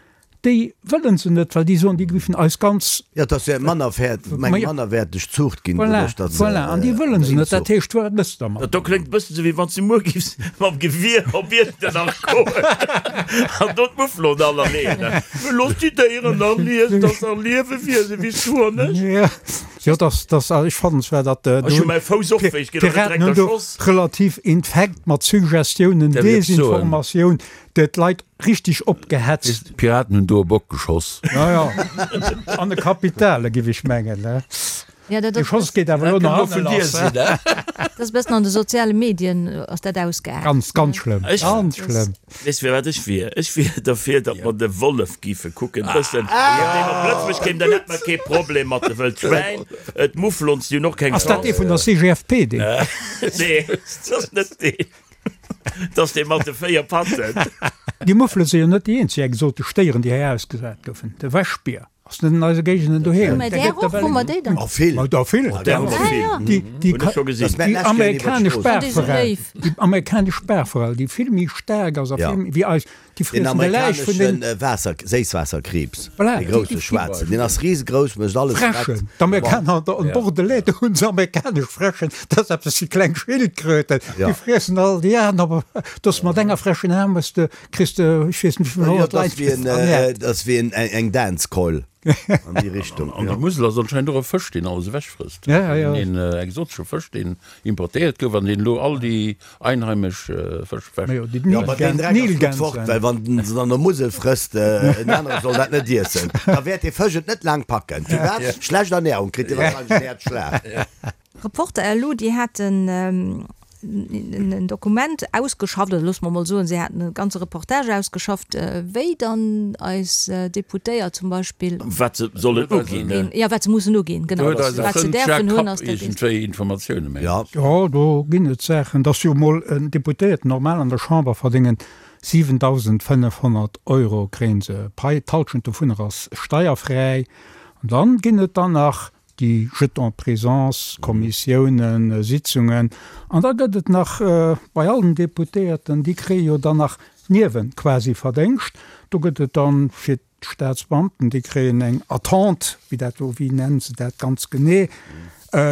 déi wëllen se net, well déi soen, déi géifen eis ganz. Jo, et ass jo eng mannerwäerteg Zuucht ginn Voilà, doduerch, datt se. voilà, an déi wëllen se net. Dat heescht, wat mëss de dermat? Dat do kléngt e bëssen esou, wéi wann s du muer giffs mam Gewier op Iechternach goen an do d'Mufflon all erleeën. Looss déi Déieren nach liesen, dass nach Liewewiese wéi s du an ech. Jo, dass, dass, ech fannen zwar, datt Ech hu mäi Fouss och wéi, ech ginn och net d'Piraten direkt hunn do erschoss. relativ infekt mat Suggestiounen, Dat wéilt ech soen. Desinformatioun, d'Leit richtig opgehetzt. D'Piraten hunn do e Bock geschoss. Jo, jo, an de Kapitale, giff ech mengen, ne? Ja, dat Dee ass Schoss geet awer elo Dat nach kënnt elo hanne vun dir lass, sinn, ne? ne? Dat ass e bëssen an de soziale Medien ass dat ausgeaart. Ganz, ganz schlëmm, Ech- ganz schlëmm. Weess fir wat ech wier? Ech wier derfir, datt mer de Wollef giffe kucken, bëssen, wann deen op Lëtzebuerg kéim, dann hätt mer kee Problem mat de Wëld Schwäin, d'Mouflons, déi hunn och keng Ass dat dee Chance. vun der CGFP, deen? Nee, dat ass net deen. Dat ass dee mat de 4 Patten. Déi Muffele si jo net déi eenzeg exotesch Déieren, déi hei ausgesat goufen. De Wäschbier ass net an eise Géigenden doheem. Hu mer där och? Hu mer déi dann? Oh, vill. Ma der vill. Där hu mer vill. Déi, déi, Hunn ech scho gesinn. déi amerikanesch An déi sou Baachforell, léif. déi amerikanesch Baachforell, déi vill méi staark ass a Ja. vill méi wéi eis. Déi friessen de Läich vun den. Den amerikanesche Waasser, Séisswaasserkriibs, dee grousse schwaarzen, deen ass risegrouss, mécht alles prett. Fräschen, d'Amerikaner an Bordelais, do hunn se amerikanesch Fräschen, dat ass eppes wéi kleng Schildkröten, déi friessen all déi aner, do ass mat enger Fräsch en Aarm, hues de, kriss de, ech weess net wéivill 100 Leit ernährt. Dat ass wéi eng Dance-Keul an déi Richtung. An der Musel ass anscheinend och e Fësch, deen alles ewechfrësst, een exotesche Fësch, deen importéiert gouf an deen elo all déi Einheimesch Fësch ewech. Jo, ma deen Dreck ass gutt fort, well wann en se dann der Musel frësst, en anere soll dat net iessen, da wäert dee Fësch et net laang packen. Firwat? Schlecht Ernährung, kritt dee wahrscheinlech en Häerzschlag. Reporter elo, déi haten en Dokument ausgeschafft, oder loosse mer emol soen, si haten e ganze Reportage ausgeschafft, wéi dann eis Deputéiert zum Beispill. Wat se sollen uginn, ne? Jo, wat se mussen uginn, genau. Do huet eise Wat se Frënd däerfen Jacques hunn, Kapp ass dat eent. iergendwéi Informatioune, mengen Ja. ech. Jo, do ginn et Saachen. Et ass jo emol en Deputéierten normal an der Chamber verdéngen 7.500 Euro kréien se Pai, d'Halschent dovunner ass steierfräi. An dann ginn et dann nach déi Jetons présence, Kommissiounen, Sitzungen. An da gëtt et nach bei all den Deputéierten, déi kréie jo dann nach Niewen quasi Verdéngscht. Do gëtt et dann fir D'Staatsbeamten, déi kréien eng Attente, wéi dat do, wéi nennen se dat ganz genee,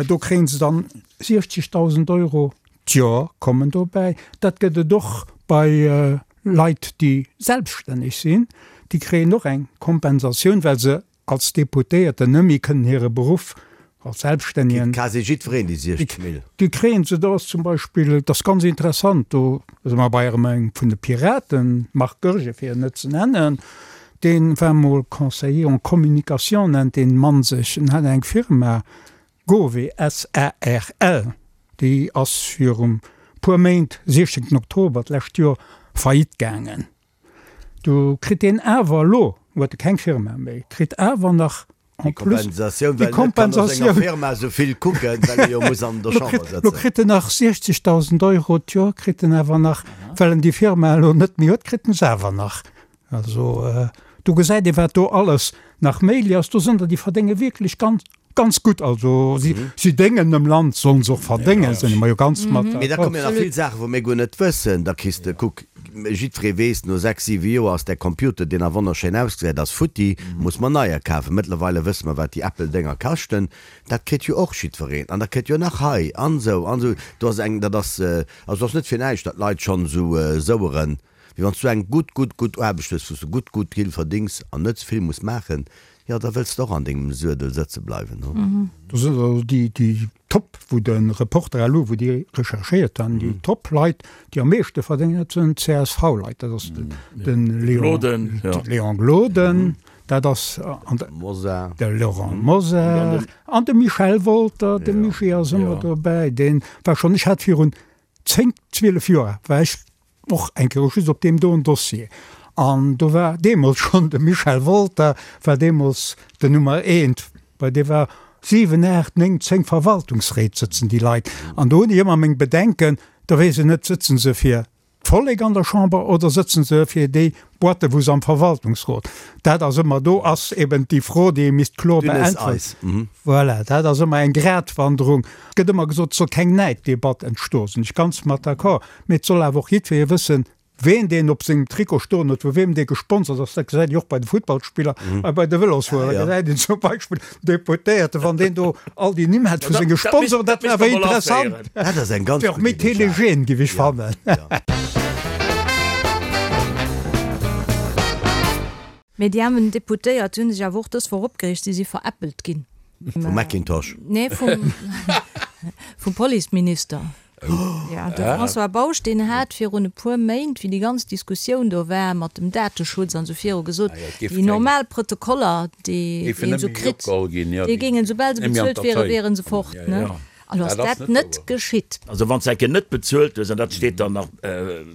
do kréie se dann 60.000 Euro d'Joer kommen dobäi. Dat gëtt et och bei Leit, déi selbststänneg sinn, déi kréien och eng Kompensatioun, well se als Deputéierten net méi kënnen hire Beruff als Selbststännigen. Kritt quasi jiddwereen déi 60 Mille. Déi kréien se. Do ass zum Beispill, et ass ganz interessant, do si mer bei erëm engem vun de Piraten, Marc Goergen, fir en net ze nennen, dee war mol Conseiller en communication, nennt dee Mann sech, en hat eng Firma, Gove SARL, déi ass viru puer Méint, 16 Oktober d'lescht Joer, faillite gaangen. Do kritt deen awer elo, huet e keng Firma méi, kritt awer nach en plus déi Kompensatioun. Firma esou vill kucken, well e jo muss an der Chamber sëtzen. Lo kritt en nach 60.000 Euro d'Joer, kritt en awer nach, well en déi Firma elo net méi huet, kritt en se awer nach. Also do gesäit ee wat do alles nach méiglech ass. Do sinn der, déi verdénge wierklech ganz, ganz gutt. Also si, si déngen dem Land, sollen se och verdéngen, sinn mer jo ganz mat Mee da d'accord. komme jo nach vill Saachen, wou mir guer net wëssen. Da kriss de, kuck, jiddweree weess, no sechs, siwe Joer ass däi Computer, deen nach wonnerschéin ausgesäit, ass futti, muss mer neier kafen. Mëttlerweile wësse mer, wat déi Apple-Dénger kaschten. Dat kritt jo och jiddwereen. An da kritt jo nach hei an esou an esou. Do ass eng, dat ass, also et ass net fir näischt, datt d'Leit schonn esou soueren. Mee wann s du eng gutt, gutt, gutt Aarbecht hues, wou s du gutt, gutt vill verdéngs an net ze vill muss maachen, jo, da wëlls de och an dengem Suedel sëtze bleiwen, hu? Do sinn also déi, déi Top, wou de Reporter elo, wou déi recherchéiert han, déi Top-Leit, déi am meeschte verdéngen, dat sinn d'CSV-Leit. Dat ass de Léon, Léon Gloden, dat ass an de Mosar, de Laurent Mosar an de Michel Wolter. De Michi ass ëmmer dobäi. Dee war schonn, ech hat virun 10, 12 Joer war ech Och eng Kéier just op deem doen Dossier. An do war deemools schonn de Michel Wolter war deemools den Nummer eent, bei dee war 7, 8, 9, 10 Verwaltungsréit sëtzen déi Leit. An do hunn ech ëmmer meng Bedenken, da weess een net, sëtzen se fir d'Vollek an der Chamber oder sëtzen se fir déi Boîte wou se am Verwaltungsrot. Dat ass ëmmer, do ass eben déi Fro, déi ee misst kloer Dünnes beäntweren. Eis. Mhm. Voilà, dat ass ëmmer eng Gratwanderung. Et gëtt ëmmer gesot, et soll keng Näiddebatt entstoen, sinn ech ganz mat d'accord. Mee et soll awer och jiddweree wëssen, ween deen op sengem Trikot stoen huet, vu weem dee gesponsert ass. Dat gesäit ee och bei de Futtballspiller a bei de Vëlosfuerer. Da gesäit een zum Beispill den Deputéierte, wann deen do all déi Nimm hätt vu senge Sponsoren, dat wär awer interessant. Dat ass eng ganz Wär och gutt méi Idee, Jacques. telegen, géif ech fannen. Mee déi aarmen Deputéiert hunn sech awer och dës Woch opgereegt, si si veräppelt ginn. Vum Macintosh? Nee, vum, vum Policeminister. Ja, de François Bausch, deen hat virun e puer Méint, wéi déi ganz Diskussioun do war mat dem Dateschutz an esou viru, gesot, déi normal Protokoller, déi een esou kritt, déi géingen, soubal se bezuelt wieren, wiere se fort. Elo ass dat net geschitt. Also wann s de eng Kéier net bezuelt hues, an dat steet dann nach,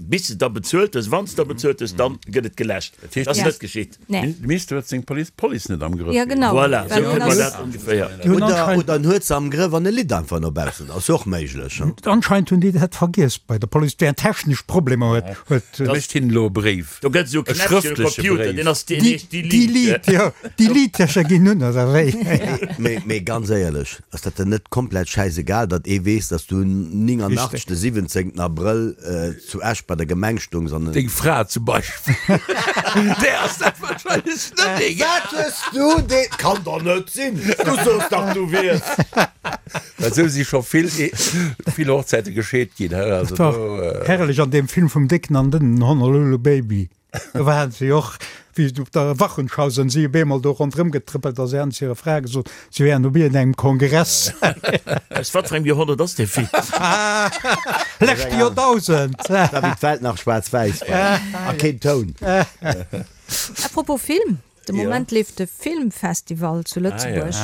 bis de da bezuelt hues, wann s de da bezuelt hues, dann gëtt et geläscht. Dat ass net geschitt. De Minister huet seng Police Police net am Grëff. Ja genau. Voilà, esou kënne mer dat ongeféier. Oder, oder en huet se am Grëff an e litt einfach no baussen. Ass och méiglech. Anscheinend hunn déi dat vergiess bei der Police, déi technesch Problemer huet. Huet. Da mécht hinnen elo e Bréif. Do gëtt esou e E Knäppchen um schrëftleche Computer, Bréif. deen ass, deen heescht Delete. Delete, jo. Delete-Täscher ginn un, oder wéi? Mee, mee ganz éierlech, ass dat dann net komplett schäisegal? egal, datt ee weess, datt s du 89 de 17 Abrëll zu Esch bei der Gemeng stungs an. Deng Fra zum Beispill, där ass dat wahrscheinlech net egal. Wat hues du dee, kann doch net sinn, du soos dach du wiers. Well esou si scho vill, vill Hochzäite gescheet ginn, he, also Dat war do. herrlech an deem Film vum Décken an Dënnen, Honolulu Baby. Do waren se jo och, wéi op der Wochenschau sinn si op eemol do ronderëm getrëppelt a se haten zu hirer Fra gesot, se wären op iergendengem Kongress. Aus wat fir engem Joerhonnert ass dee Film? Leschte Joerdausend! Dat war wéi d'Welt nach schwaarz-wäiss war a keen Toun. Apropos Film, De Moment leeft de Filmfestival zu Lëtzebuerg.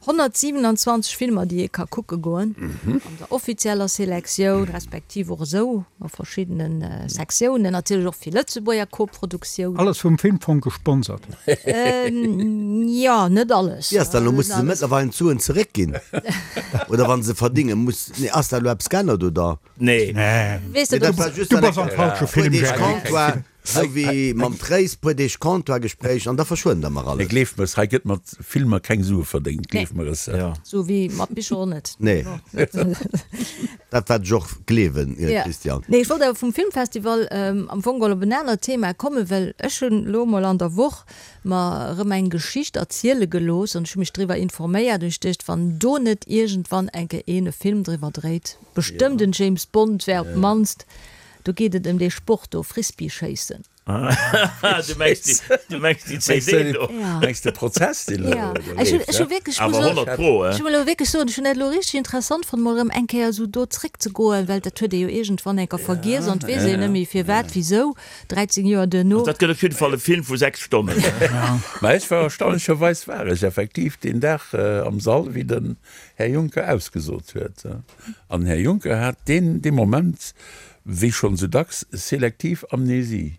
127 Filmer, déi ee ka kucke goen, an der offizieller Selektioun, respektiv och esou a verschiddene Sektiounen, natierlech och vill Lëtzebuerger Koproduktioun. Alles vum Filmfong gesponsert? Jo, net alles. Wéi ass dat elo? Musse se mëttlerweilen d'Suen zeréckginn? Oder wa se verdinge muss, nee, ass dat elo eppes geännert, oder? Nee. Weess de, dat war just Du bass am falsche Film, Gerry. Sou wéi mam Tréis, puer Deeg Comptoir-Gespréich an da verschwënnt der mer alles. Mee gleeft mer es, hei gëtt mat Filmer keng Sue verdéngt, gleeft mer es. Sou wéi mat Bicher och net. Nee, dat wat ech och gleewen, Christian. Nee, ech wollt awer vum Filmfestival am Fong geholl op en anert Thema kommen, well ech hunn elo emol an der Woch mer erëm eng Geschicht erziele gelooss an ech hu mech driwwer informéiert an ech duecht, wann do net iergendwann eng Kéier een e Film driwwer dréit, bestëmmt en James Bond wär op d'mannst Do geet et ëm dee Sport do, Frisbee-Schéissen. Du mengs déi, du mengs déi CD do? Ja. Mengs de Prozess, deen elo Ja. Ech hunn, ech hu wierklech, Awer 100 pro, ech eh? hu elo wierklech soen, ech hunn dat elo richteg interessant fonnt, mol erëm eng Kéier esou do zréckzegoen, well dat huet ee jo iergendwann eng Kéier vergiess an et weess een net méi firwat, wisou, 13 Joer duerno. Also dat gëtt op jidde Fall e Film vu 6 Stonnen. Mä ech war erstaunlecherweis war ech effektiv deen Dag am Sall, wéi den Här Juncker ausgesot huet. An den Här Juncker hat deen dee Moment, wéi schonn esou dacks, selektiv Amnesie.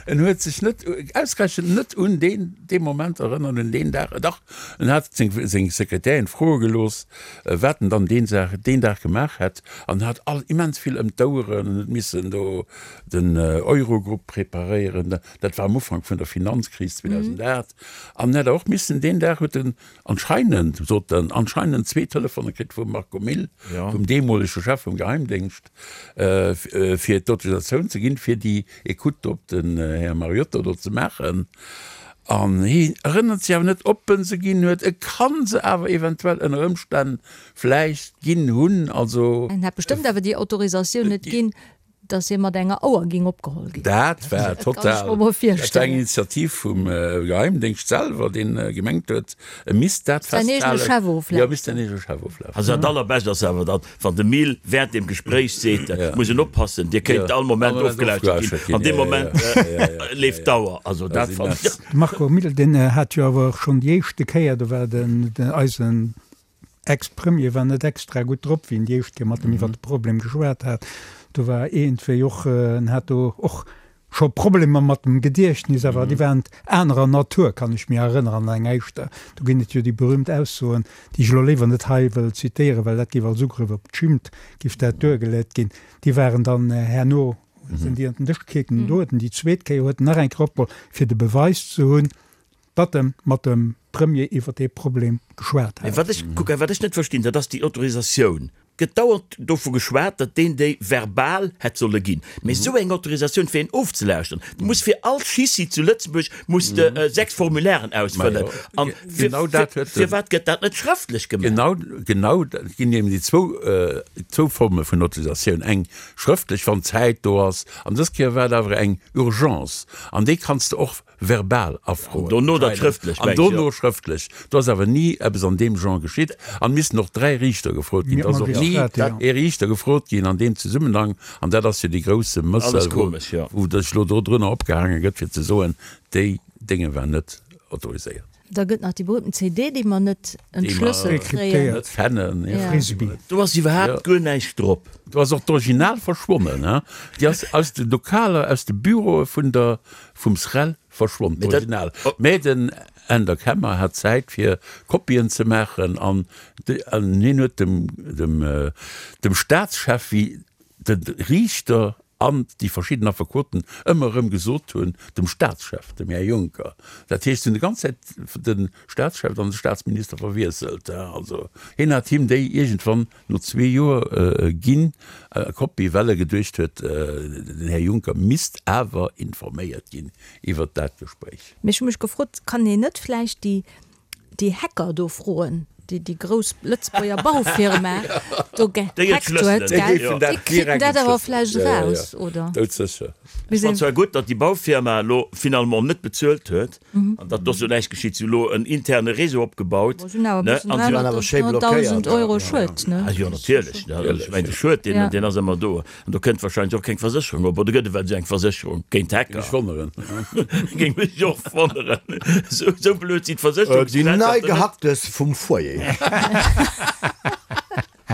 En huet sech net, ausgerechent net un deen dee Moment erënnert, un deen Dag. Dach, en hat seng seng Sekretärin froe gelooss, wat en dann deen Dag deen Dag gemaach hätt, an hat all immens vill ëm d'Oueren. En huet missen do den Eurogrupp preparéieren, dat war am Ufank vun der Finanzkris 2008. An en hätt och missen deen Dag huet en Anscheinend, sot en, anscheinend zwee Telefone kritt vum Marco Mille, vum deemolege Chef vum Geheimdéngscht, fir d'Autorisatioun ze ginn, fir déi Ecoute op den Här Mariotto do ze maachen. An hien erënnert sech awer net, ob en se ginn huet. E kann se awer eventuell ënner Ëmstänn vläicht ginn hunn. Also. En hätt bestëmmt awer déi Autorisatioun net ginn, Dass hie mat enger Auer ging opgeholl ginn. Dat war total, dat war eng Initiativ vum Geheimdéngscht selwer, deen gemengt huet, e misst dat festhalen. Jo, e misst säin eegene Chef oflauschteren. Also dat allerbescht ass awer dann, wann de Mil während dem Gespréich seet, et muss een oppassen, Dir kéint all Moment ofgelauschtert ginn. An deem Moment leeft d'Auer. Also dat fannen ech. De Marco Mille, deen hat jo awer och schonn déi éischte Kéier, do war den eisen Ex-Premier war net extra gutt drop, wéi en déi éischt Kéier mat em iwwer de Problem geschwat hat. Do war iergendwéi och, en hat do och scho Problemer mat dem Gediechtnis, awer déi waren anerer Natur, kann ech mir erënneren, an eng éischter. Do ginn et jo déi berühmt Aussoen, déi ech elo léiwer net hei wëll zitéieren, well dat géif als Ugrëff op d'Schimmt géif dat duergelet ginn. Déi waren dann herno, sinn déi an den Dësch gekickt. Do huet en déi zweet Kéier huet en nach eng Kéier opgeholl, fir de Beweis ze hunn, datt e mat dem Premier iwwer dee Problem geschwat Mee hat. wat ech, kuck, wat ech net verstinn, dat ass déi Autorisatioun. Gëtt dauernd dovu geschwat, datt deen déi verbal hätt solle ginn. Mee esou eng Autorisatioun fir een ofzelauschteren, du muss fir all Schissi zu Lëtzebuerg muss de 6 Formulairen ausfëllen. An fir, fir, firwat gëtt dat net schrëftlech gemaach? Genau, genau, et ginn eben déi zwou, zwou Forme vun Autorisatioun, eng schrëftlech, wann d'Zäit do ass, an dës Kéier war et awer eng Urgence, an déi kanns de och verbal afroen. Dono dat schrëftlech, An dono schrëftlech. Do ass awer ni eppes an deem Genre geschitt. An missten och 3 Riichter gefrot ginn. Et ass och ni ee Riichter gefrot ginn an deem Zesummenhang. An dat ass jo dee grousse Mëssel, wou sech elo dodrunner opgehaange gëtt, fir ze soen, déi Dénge war net autoriséiert. Da gëtt nach déi berühmten CD, déi mer net entschlësselt kréien. Net fannen, ja. Frisbee. Do ass iwwerhaapt guer näischt drop. Do ass och d'Original verschwonnen, hein. Déi ass aus de Lokaler, aus de Büroe vun der, vum SREL verschwonn, d'Original. Mä den Änder Kemmer hat Zäit fir Kopien ze maachen an hien huet dem, dem, dem Staatschef, wéi de Riichter. An déi verschidden Affekoten ëmmer erëm gesot hunn, dem Staatschef, dem Här Juncker, dat heescht, se hunn déi ganz Zäit de Staatschef an de Staatsminister verwiesselt, also hien hat him déi iergendwann no zwee Joer ginn, Kopie, well e geduecht huet, den Här Juncker misst awer informéiert ginn iwwert dat Gespréich. Mee ech hu mech gefrot, kann een net vläicht déi déi Hacker do froen, déi déi grouss Lëtzebuerger Baufirma do gehackt huet, gell? Déi kriiten dat awer vläicht eraus, oder? Doudsécher. Ech fannen zwar gutt, datt déi Baufirma elo finalement net bezuelt huet an datt do sou näischt geschitt. Si hu elo en interne Réseau opgebaut, Bon, si hunn awer e bëssen 300.000 Euro Schued, ne? Ah jo, natierlech, ech mengen de Schued, deen ass ëmmer do. An do kënnt wahrscheinlech och keng Versécherung op, oder gëtt et well esou eng Versécherung géint Hacker? Géing mech wonneren. Géing mech och wonneren. Esou, esou blöd sinn Déi d'Versécherungsgesellschaften nei net. Gehacktes vum Foyer.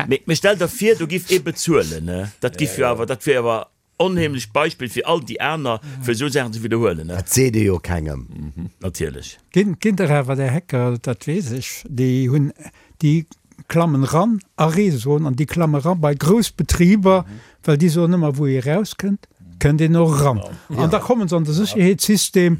Mee, mee stell der vir, do giff ee bezuelen, ne? Dat giff jo awer, dat wier awer onheemlecht Beispill fir all déi aner, fir esou Saachen ze widderhuelen, ne? Dat seet ee jo kengem. Natierlech. Ginn, ginn der awer där Hacker, dat weess ech, déi hunn, déi klammen ran a Réseauen an déi klamme ran bei grouss Betriber, well déi soen ëmmer, wou ee rauskënnt, kënnt een och eran. An da kommen se an de Sécherheetssystem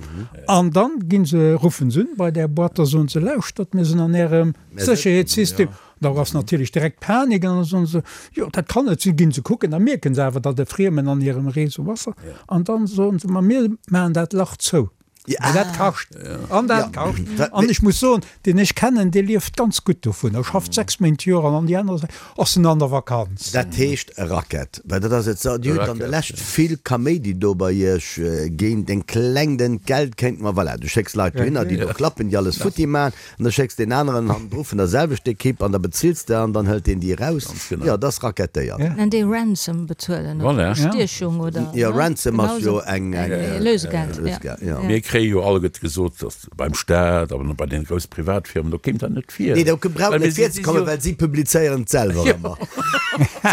an dann ginn se, ruffen se un bei där Boîte, da soen se, lauschtert, mir sinn an Ärem Sécherheetssystem. Da ass natierlech direkt Panik an da soen se, jo dat kann net sinn, ginn se kucken, da mierken se awer, datt e Friemen an hirem Réseau ass an dann soen se, ma mir maachen dat Lach zou. Mä dat kascht. An dat kascht. An ech muss soen, deen ech kennen, dee lieft ganz gutt dovun. E schafft 6 Méint d'Joer an an déi aner ass en an der Vakanz. Dat heescht Racket, well dat ass et. Dir hutt an der Lescht vill Kaméidi do bei Iech géint en klengt Entgelt kéint mer, voilà, du schécks Leit dohinner, déi do klappen, déi alles futti maachen. An da schécks deen aneren hannendru vun der selwechter Ekipp an da bezills de an dann hëlt deen déi eraus. Jo, dat ass rackettéiert. Nennt ee Ransom bezuelen oder Bestiechung oder. Jo, Ransom ass jo eng Lösegeld. Jo. Mir kréie jo alleguerte gesot, datt beim Staat an bei deene grousse Privatfirmen, do kéim dat net vir. Nee, do brauch net virzekommen, well si publizéieren et selwer ëmmer.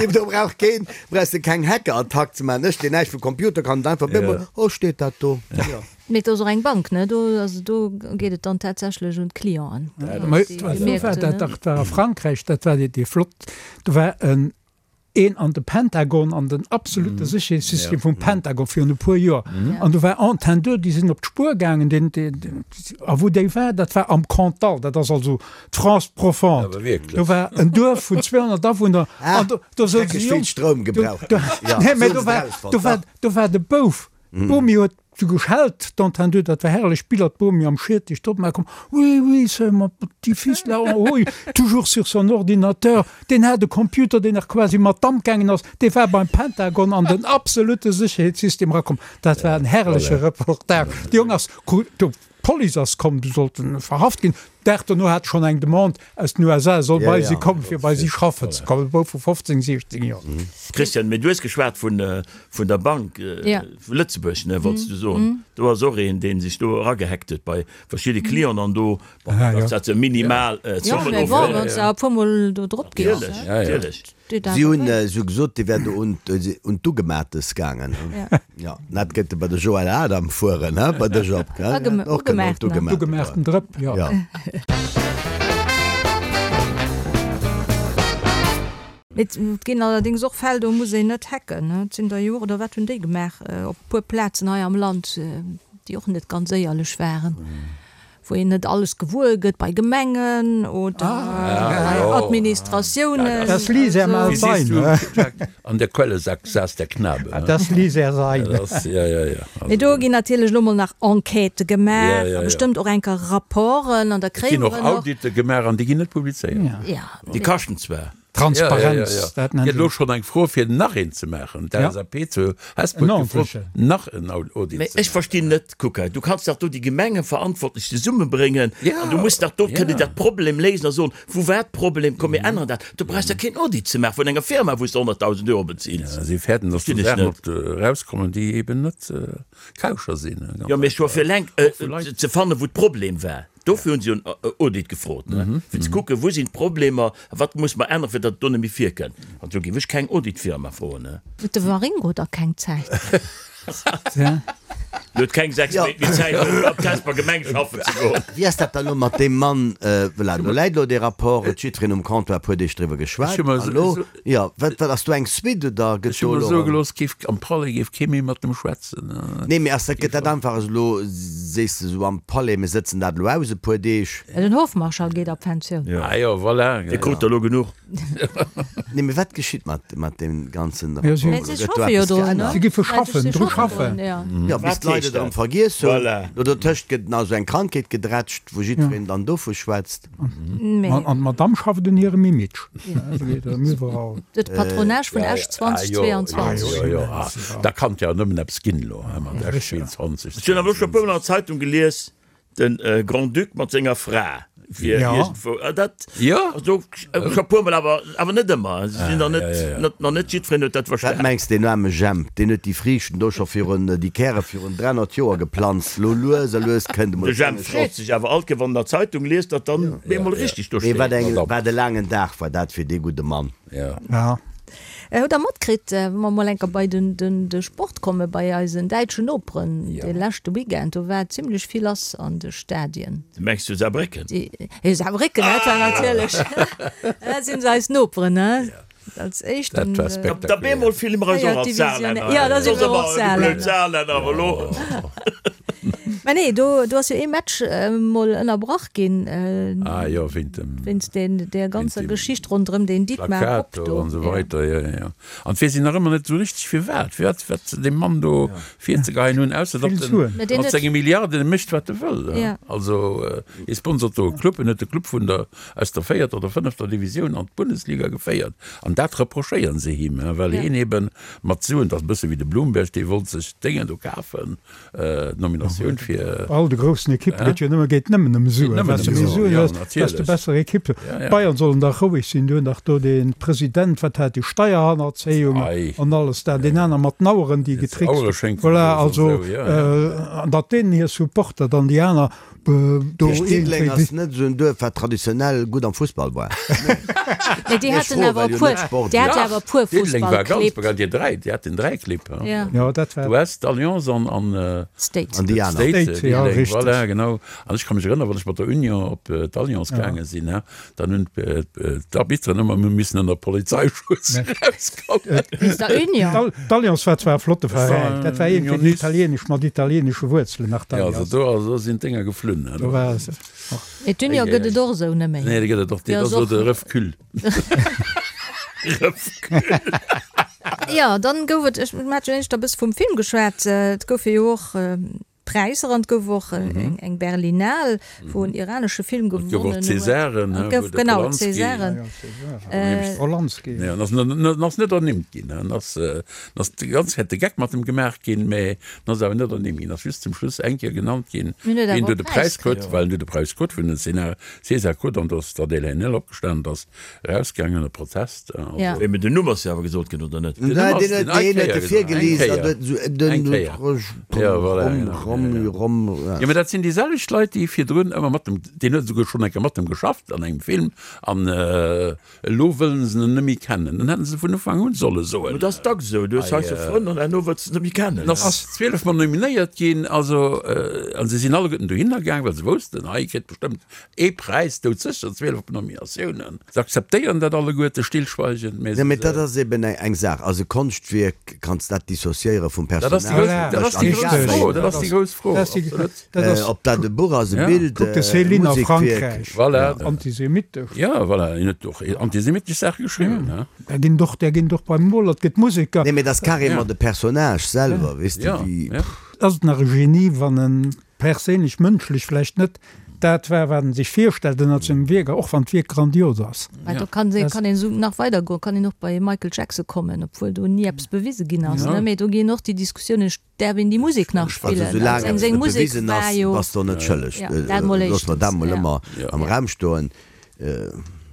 Do brauch keen, brauchs de keng Hackerattack ze maachen. Ech, deen näischt vu Computer kann, et einfach op eemol, oh, steet dat do. Jo. Mee et ass och eng Bank, ne? Do, also do geet et dann tatsächlech un d'Clienten. Mä do war dat dach, dat war a Frankräich, dat war déi flott, do war en een an de Pentagon, an den absolute Sécherheetssystem vum Pentagon virun e puer Joer. An do war Antenn 2, déi sinn op d'Spuer gaangen, deen, deen, a wou déi war, dat war am Cantal, dat ass also d'France profonde. Do war en Duerf vun 200 Awunner an do, do souz e Jong, nee, mä do war, do war, do war de Bouf, d'Bomi huet Sou geschellt, d'Entendu, dat war herrlech, Biller, d'Bomi am Schiertech drop, mä komm, oui, oui, c'est mon petit fils là en haut, toujours sur son ordinateur, deen hat e Computer, deen nach quasi mat Damp gaangen ass, dee war beim Pentagon an den absolute Sécherheetssystem erakomm. Dat war en herrleche Reportage. De Jong ass, d'Police ass komm, du sollt en verhaft ginn. Dag dono hat schonn eng Demande aus den USA, e soll bei si kommen, fir bei si schaffen ze kommen, e Bouf vu 15, 16 Joer. Christian, mee du hues geschwat vun der Bank vu Lëtzebuerg, ne, wollts du soen. Do ass och een, dee sech do eragehackt huet bei verschidde Clienten an do, bon, dat ass minimal Zommen ofgeholl. Jo, mee bon, wann s de awer e puermol do drop gees, Natierlech, natierlech. Si hunn esou gesot, dee wär do un d'Ugemaates gaangen. Jo, dat gëtt e bei de Joël Adam fueren, he, bei de Job, gell? Och kënnen un d'Ugemaaten. D'ugemaachten Drëpp, jo. Et ginn allerdéngs och Fäll, do muss een net hacken. Et sinn der jo och, oder wat hunn déi gemaach op e puer Plazen hei am Land, déi och net ganz éierlech waren. Wou een net alles gewuer gëtt bei Gemengen oder bei Administratiounen. Das ließ er mal sein, he? An der Quelle saß der Knabe, he? Das ließ er sein. Mee do ginn natierlech elo mol nach Enquêtë gemaach a bestëmmt och enker Rapporten an da kréie mer och. Et ginn och Audite gemaach an déi ginn net publizéiert. Déi kaschten zwar. Transparenz, dat nennt een. Gëtt elo schonn eng Fro fir nach een ze maachen. D'LSAP zu Hesper huet gefrot nach en Audit ze maachen. Mee ech verstinn net, kuck hei, du kanns dach do déi Gemengeverantwortlech zesummebréngen an du muss dach do kënnen dat Problem léisen a soen, wou war d'Problem, komm mir änneren dat. Du brauchs dach keen Audit ze maachen vun enger Firma wou s de 100.000 Euro bezills. Si fäerten, datt do Saachen op erauskommen, déi eben net kauscher sinn. Jo, mee ech war fir eleng ze fannen, wou d'Problem war. Dofir hunn si jo en Audit gefrot, fir ze kucken, wou sinn d'Problemer a wat muss mer änneren, fir datt et do net méi virkënnt. An do géif ech keng Auditfirma froen. Huet de Waringo da keng Zäit? En huet keng 6 Méint méi Zäit, fir op d'Hesper Gemeng schaffen ze goen. Wéi ass dat dann elo mat deem Mann? Voilà, do läit elo dee Rapport, huet jiddwereen um Comptoir e puer Deeg driwwer geschwat. An elo, jo, wat, wat ass do eng Suite oder gëtt Ech hu do mer elo soe erëm. gelooss, géif am Palais géif kee méi mat em schwätzen. Nee, mee ass dat, gëtt dat einfach esou elo, sees de esou am Palais, mir sëtzen dat elo aus e puer Deeg? Den Hofmarschall geet a Pensioun. Ah jo, voilà. Dee krut der elo genuch. Nee, mee wat geschitt mat, mat deem ganzen Ja, si- Rapport? Si Gëtt do schaffe jo eppes drun, ne? geännert? Si giffe schaffen, Si dru schaffen schaffen. drun, ja. Ja, bis Wat d'Leit heescht et erëm dat? vergiess hunn. Voilà. Do dertëscht gëtt nach esou eng Krankheet gedrätscht, wou jiddwereen dann dovu schwätzt. Mee An d'Madame schafft un hirem Image. Se geet erëm iwwerall. de Patronage vun Esch Ah, jo, 2022. jo, jo, ah, da kann et jo nëmmen eppes ginn elo, hein, mat Esch 22. Ech hunn awer elo scho e puermol an der Zeitung gelies, De Grand-Duc mat senger Fra wier iergendwou. Dat also scho puermol, awer awer net ëmmer. Se sinn der net, nach net jiddwereen huet dat Wat verstan. mengs deen aarme Jemp, deen huet déi Friichten do scho virun, déi Käre virun 300 Joer geplanzt. Lo lues a lues kënnt emol De Jemp d'Sonne freet Schoss. sech awer alt, wann en der Zeitung liest, datt dann bemol richtig do Mee wat steet. eng, wat e laangen Dag war dat fir dee gudde Mann. Ja. Hutt der matkritt, wa mer mol enker bei de Sport kommen, bei eisen däitschen Noperen, de leschte Weekend, do war zimlech vill lass an de Stadien. Du mengs zu Saarbrécken? Jo, Saarbrécken, dat war natierlech, dat sinn eis Noperen, ne? Als éischten. Dat war spektakulär. Da bemol fille mer eis och als Saarlänner. Jo, da si mer och Saarlänner. Blöd Saarlänner, awer elo. Mä nee, do, do ass jo ee Match mol ënnerbrach ginn. Ah jo, wéint dem. Wéinst deen, där ganzer Geschicht ronderëm deen Dietmar Hopp Plakat do do. an esou weider, jo, jo, jo. An d'weess een nach ëmmer net esou richteg firwat, firwat, wat se deem Mann do virzegeheien hunn, ausser datt Vill en Suen. Mä deen mat huet. senge Milliarden mécht wat e wëll. Ja. Also hie sponsort do e Club, en huet de Club vun der, aus der véierter oder fënnefter Divisioun an d'Bundesliga geféiert an dat reprochéieren se him, well Ja. hien eben mat Suen, dat ass e bësse wéi de Bloomberg, dee wollt sech d'Déngen do kafen, D'Nominatioun fir. All de groussen Ekippe gëtt jo nëmme, geet nëmmen ëm Suen. Wat de méi Suen hues, desto besser Ekipp. D'Bayern sollen dach roueg sinn, déi hunn dach do dee President, wat hat déi Steierhannerzéiung an alles dat, deen aner mat den Aueren, déi getrickst. Voilà, also an datt deenen hir Supporter dann déi aner Do Diddeleng ass net esou en Duerf wat traditionell gutt am Fussball war. Mee déi haten awer e puer, déi hate awer e puer Diddeleng war ganz Fussballclibb. bekannt, déi dräi, déi haten dräi Clibb. Ja. Jo, dat war. D'US, d'Alliance an an State. An déi aner. State, State, ja, Diddeleng, richteg. voilà, genau. An ech ka mech erënneren, wann ech mat der Union op d'Alliance gaange sinn, Dann hunn d'Arbitteren ëmmer missen ënner Polizeischutz erauskommen. Wéinst der Union? D'Alliance war zwar e flotte Veräin, dat war iergendwéi italienesch, mat italienesche Wuerzelen nach, d'Alliance. Jo, also do sinn d'Dénger geflunn. Do war se och. Mee d'Union gëtt et och esou net méi. Nee, déi gëtt et och, dat ass elo de Refcul. Refcul. Jo, dann gouf et, ech, mir hat jo éischter e bësse vum Film geschwat, et goufe jo och Präisser an et gouf och eng Berlinale, wou en iranesche Film gewonnen huet. Et gouf och Césaren, Et gouf, genau, Césaren. Polanski. Nee, en ass, en ass net ernimmt ginn. En ass, en ass déi ganz Zäit de Geck mat em gemaach ginn, mä en ass awer net ernimmt ginn. En ass just zum Schluss eng Kéier genannt ginn, Mee en huet wien awer do de e Präis Präis krut, well en huet de Präis krut vun den César krut an do ass d'Adèle Haenel opgestanen, ass Erausgaangen e Protest. Ja. Mee den Numm ass jo awer gesot ginn, oder net? Den huet e virgelies an huet esou den Rom, Jo, mä dat sinn déi selwecht Leit, déi virdrun ëmmer mat dem, deen huet esouguer schonn eng Kéier mat dem geschafft an engem Film, an elo wëllen se en net méi kennen. Dann hätten se vun Ufank un solle soen. Mä dat ass dacks esou, du hues hei sou Frënn an herno wëlls de se net méi kennen. En ass 12 mol nominéiert ginn, also, a se sinn alleguerten dohinner gaang, well se woussten, hei kritt bestëmmt Ee Präis, doudsécher, 12 Nominatiounen. Se akzeptéieren dat alleguerte stillschweigend, mä Nee, mee dat ass eben eng Saach. Also Konschtwierk kanns dat dissociéiere vum Dat ass déi Personal. grouss, dat ass déi grouss Fro, dat ass déi grouss Fro, absolut. Ob dat e Buch ass, e Bild, Kuck de e Céline a Musekwierk. Frankräich, Voilà. antisemitesch. Jo, voilà, hien huet och antisemitesch Saache geschriwwen, he. Där ginn och, där ginn och beim Moler, et gëtt Museker. Nee, mee dat ass carrément de Personnage selwer, weess de, wéi. Ass et nach e Genie, wann en perséinlech, mënschlech vläicht net dat war, wat en sech virstellt ënnert sengem Wierk, och wann d'Wierk grandios ass. Mä do kann ee kann een esou nach weider goen, kann een och bei Michael Jackson kommen, obwuel do ni eppes bewise ginn ass, ne? Mee do ginn och déi Diskussiounen, däerf een déi Musek nach Also spillen? soulaang Seng eppes seng net Musek bewisen war ass, jo. bass de och net schëlleg. Ja, dat mol Loosse mer dat éischtens, mol ja. ëmmer am Raum stoen.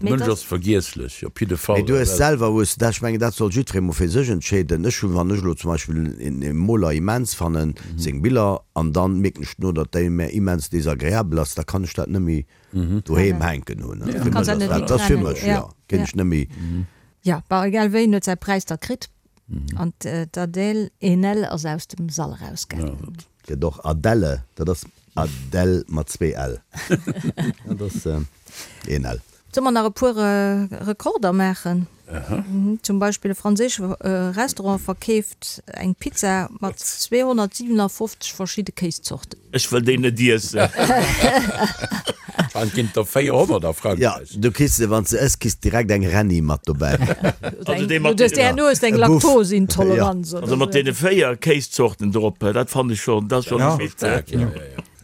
Mee Mënsch dat. ass vergiesslech, op jidde Fall. Mee du hues selwer, hues dat, ech mengen, dat soll jiddweree mol fir sech entscheeden. Ech hunn, wann ech elo zum Beispill e Moler immens fannen, seng Biller, an dann mierken ech duerno, datt déi mär immens desagreabel ass, da kann ech dat net méi doheem hänken hunn. Fir mech ass dat, dat ass fir mech, jo, kéint ech net méi. Jo, bon, egal wéi, en huet säi Präis da kritt. An d'Adèle Haenel ass aus dem Sall erausgaangen. Gëtt och Adèle, dat ass Adèle mat zwee L. Dat ass een L. Solle mer nach e puer Rekorder maachen? Zum Beispill e franséische Restaurant verkeeft eng Pizza mat 257 verschidde Kéiszorten. Ech wëll déi net iessen. An ginn der 400 a Frankräich. Jo, du kriss se, wann s de ëss, kriss direkt eng Rennie mat dobäi. Also déi mat Du herno hues eng Laktoseintoleranz oder. Also mat deene 4 Kéiszorten drop, dat fannen ech schonn, dat ass schonn e Witz.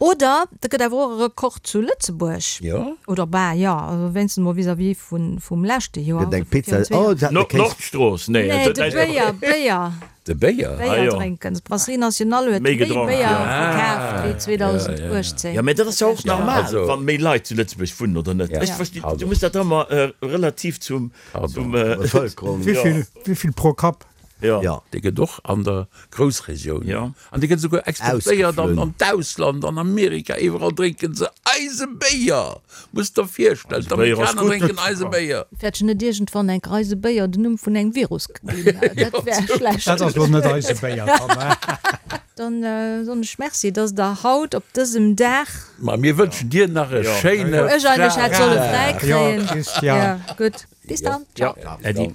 Oder et gëtt awer och e Rekord zu Lëtzebuerg. Jo. Oder bah, jo, also wéinstens mol vis-à-vis vun, vum leschte Joer. Gëtt eng Pizza, oh, se haten e Kéis. Nordstrooss, nee. Nee, de Béier, Béier. De Béier? Béier drénken. D'Brasserie Nationale huet Méi méi gedronk, Béier jo. verkaaft wéi 2018. Jo, mä dat ass jo och normal, wa méi Leit zu Lëtzebuerg wunnen, oder net? Ech verstinn, du muss dat ëmmer relativ zum, zum. Bevëlkerung. Wéi vill pro Kapp? Jo. Jo. Dee gëtt och an der Groussregioun. Jo. An dee gëtt esouguer exportéiert an Ausgeflunn. an d'Ausland, an Amerika, iwwerall drénke se eise Béier! Muss der virstellen, Eise Béier ass d'Amerikaner gutt. drénken eise Béier! Wäert ech net iergendwann enk eise Béier den Numm vun engem Virus ginn? Dat wär schlecht. Dat ass lo net eise Béier dann, he? Dann soen ech Merci, dass Der haut op dësem Dag. Ma mir wënschen dir nach e Jo. schéine Wou ech eigentlech hätt solle fräi Jo, kréien. Christian. Jo, gutt. Bis dann. Ciao. Äddi.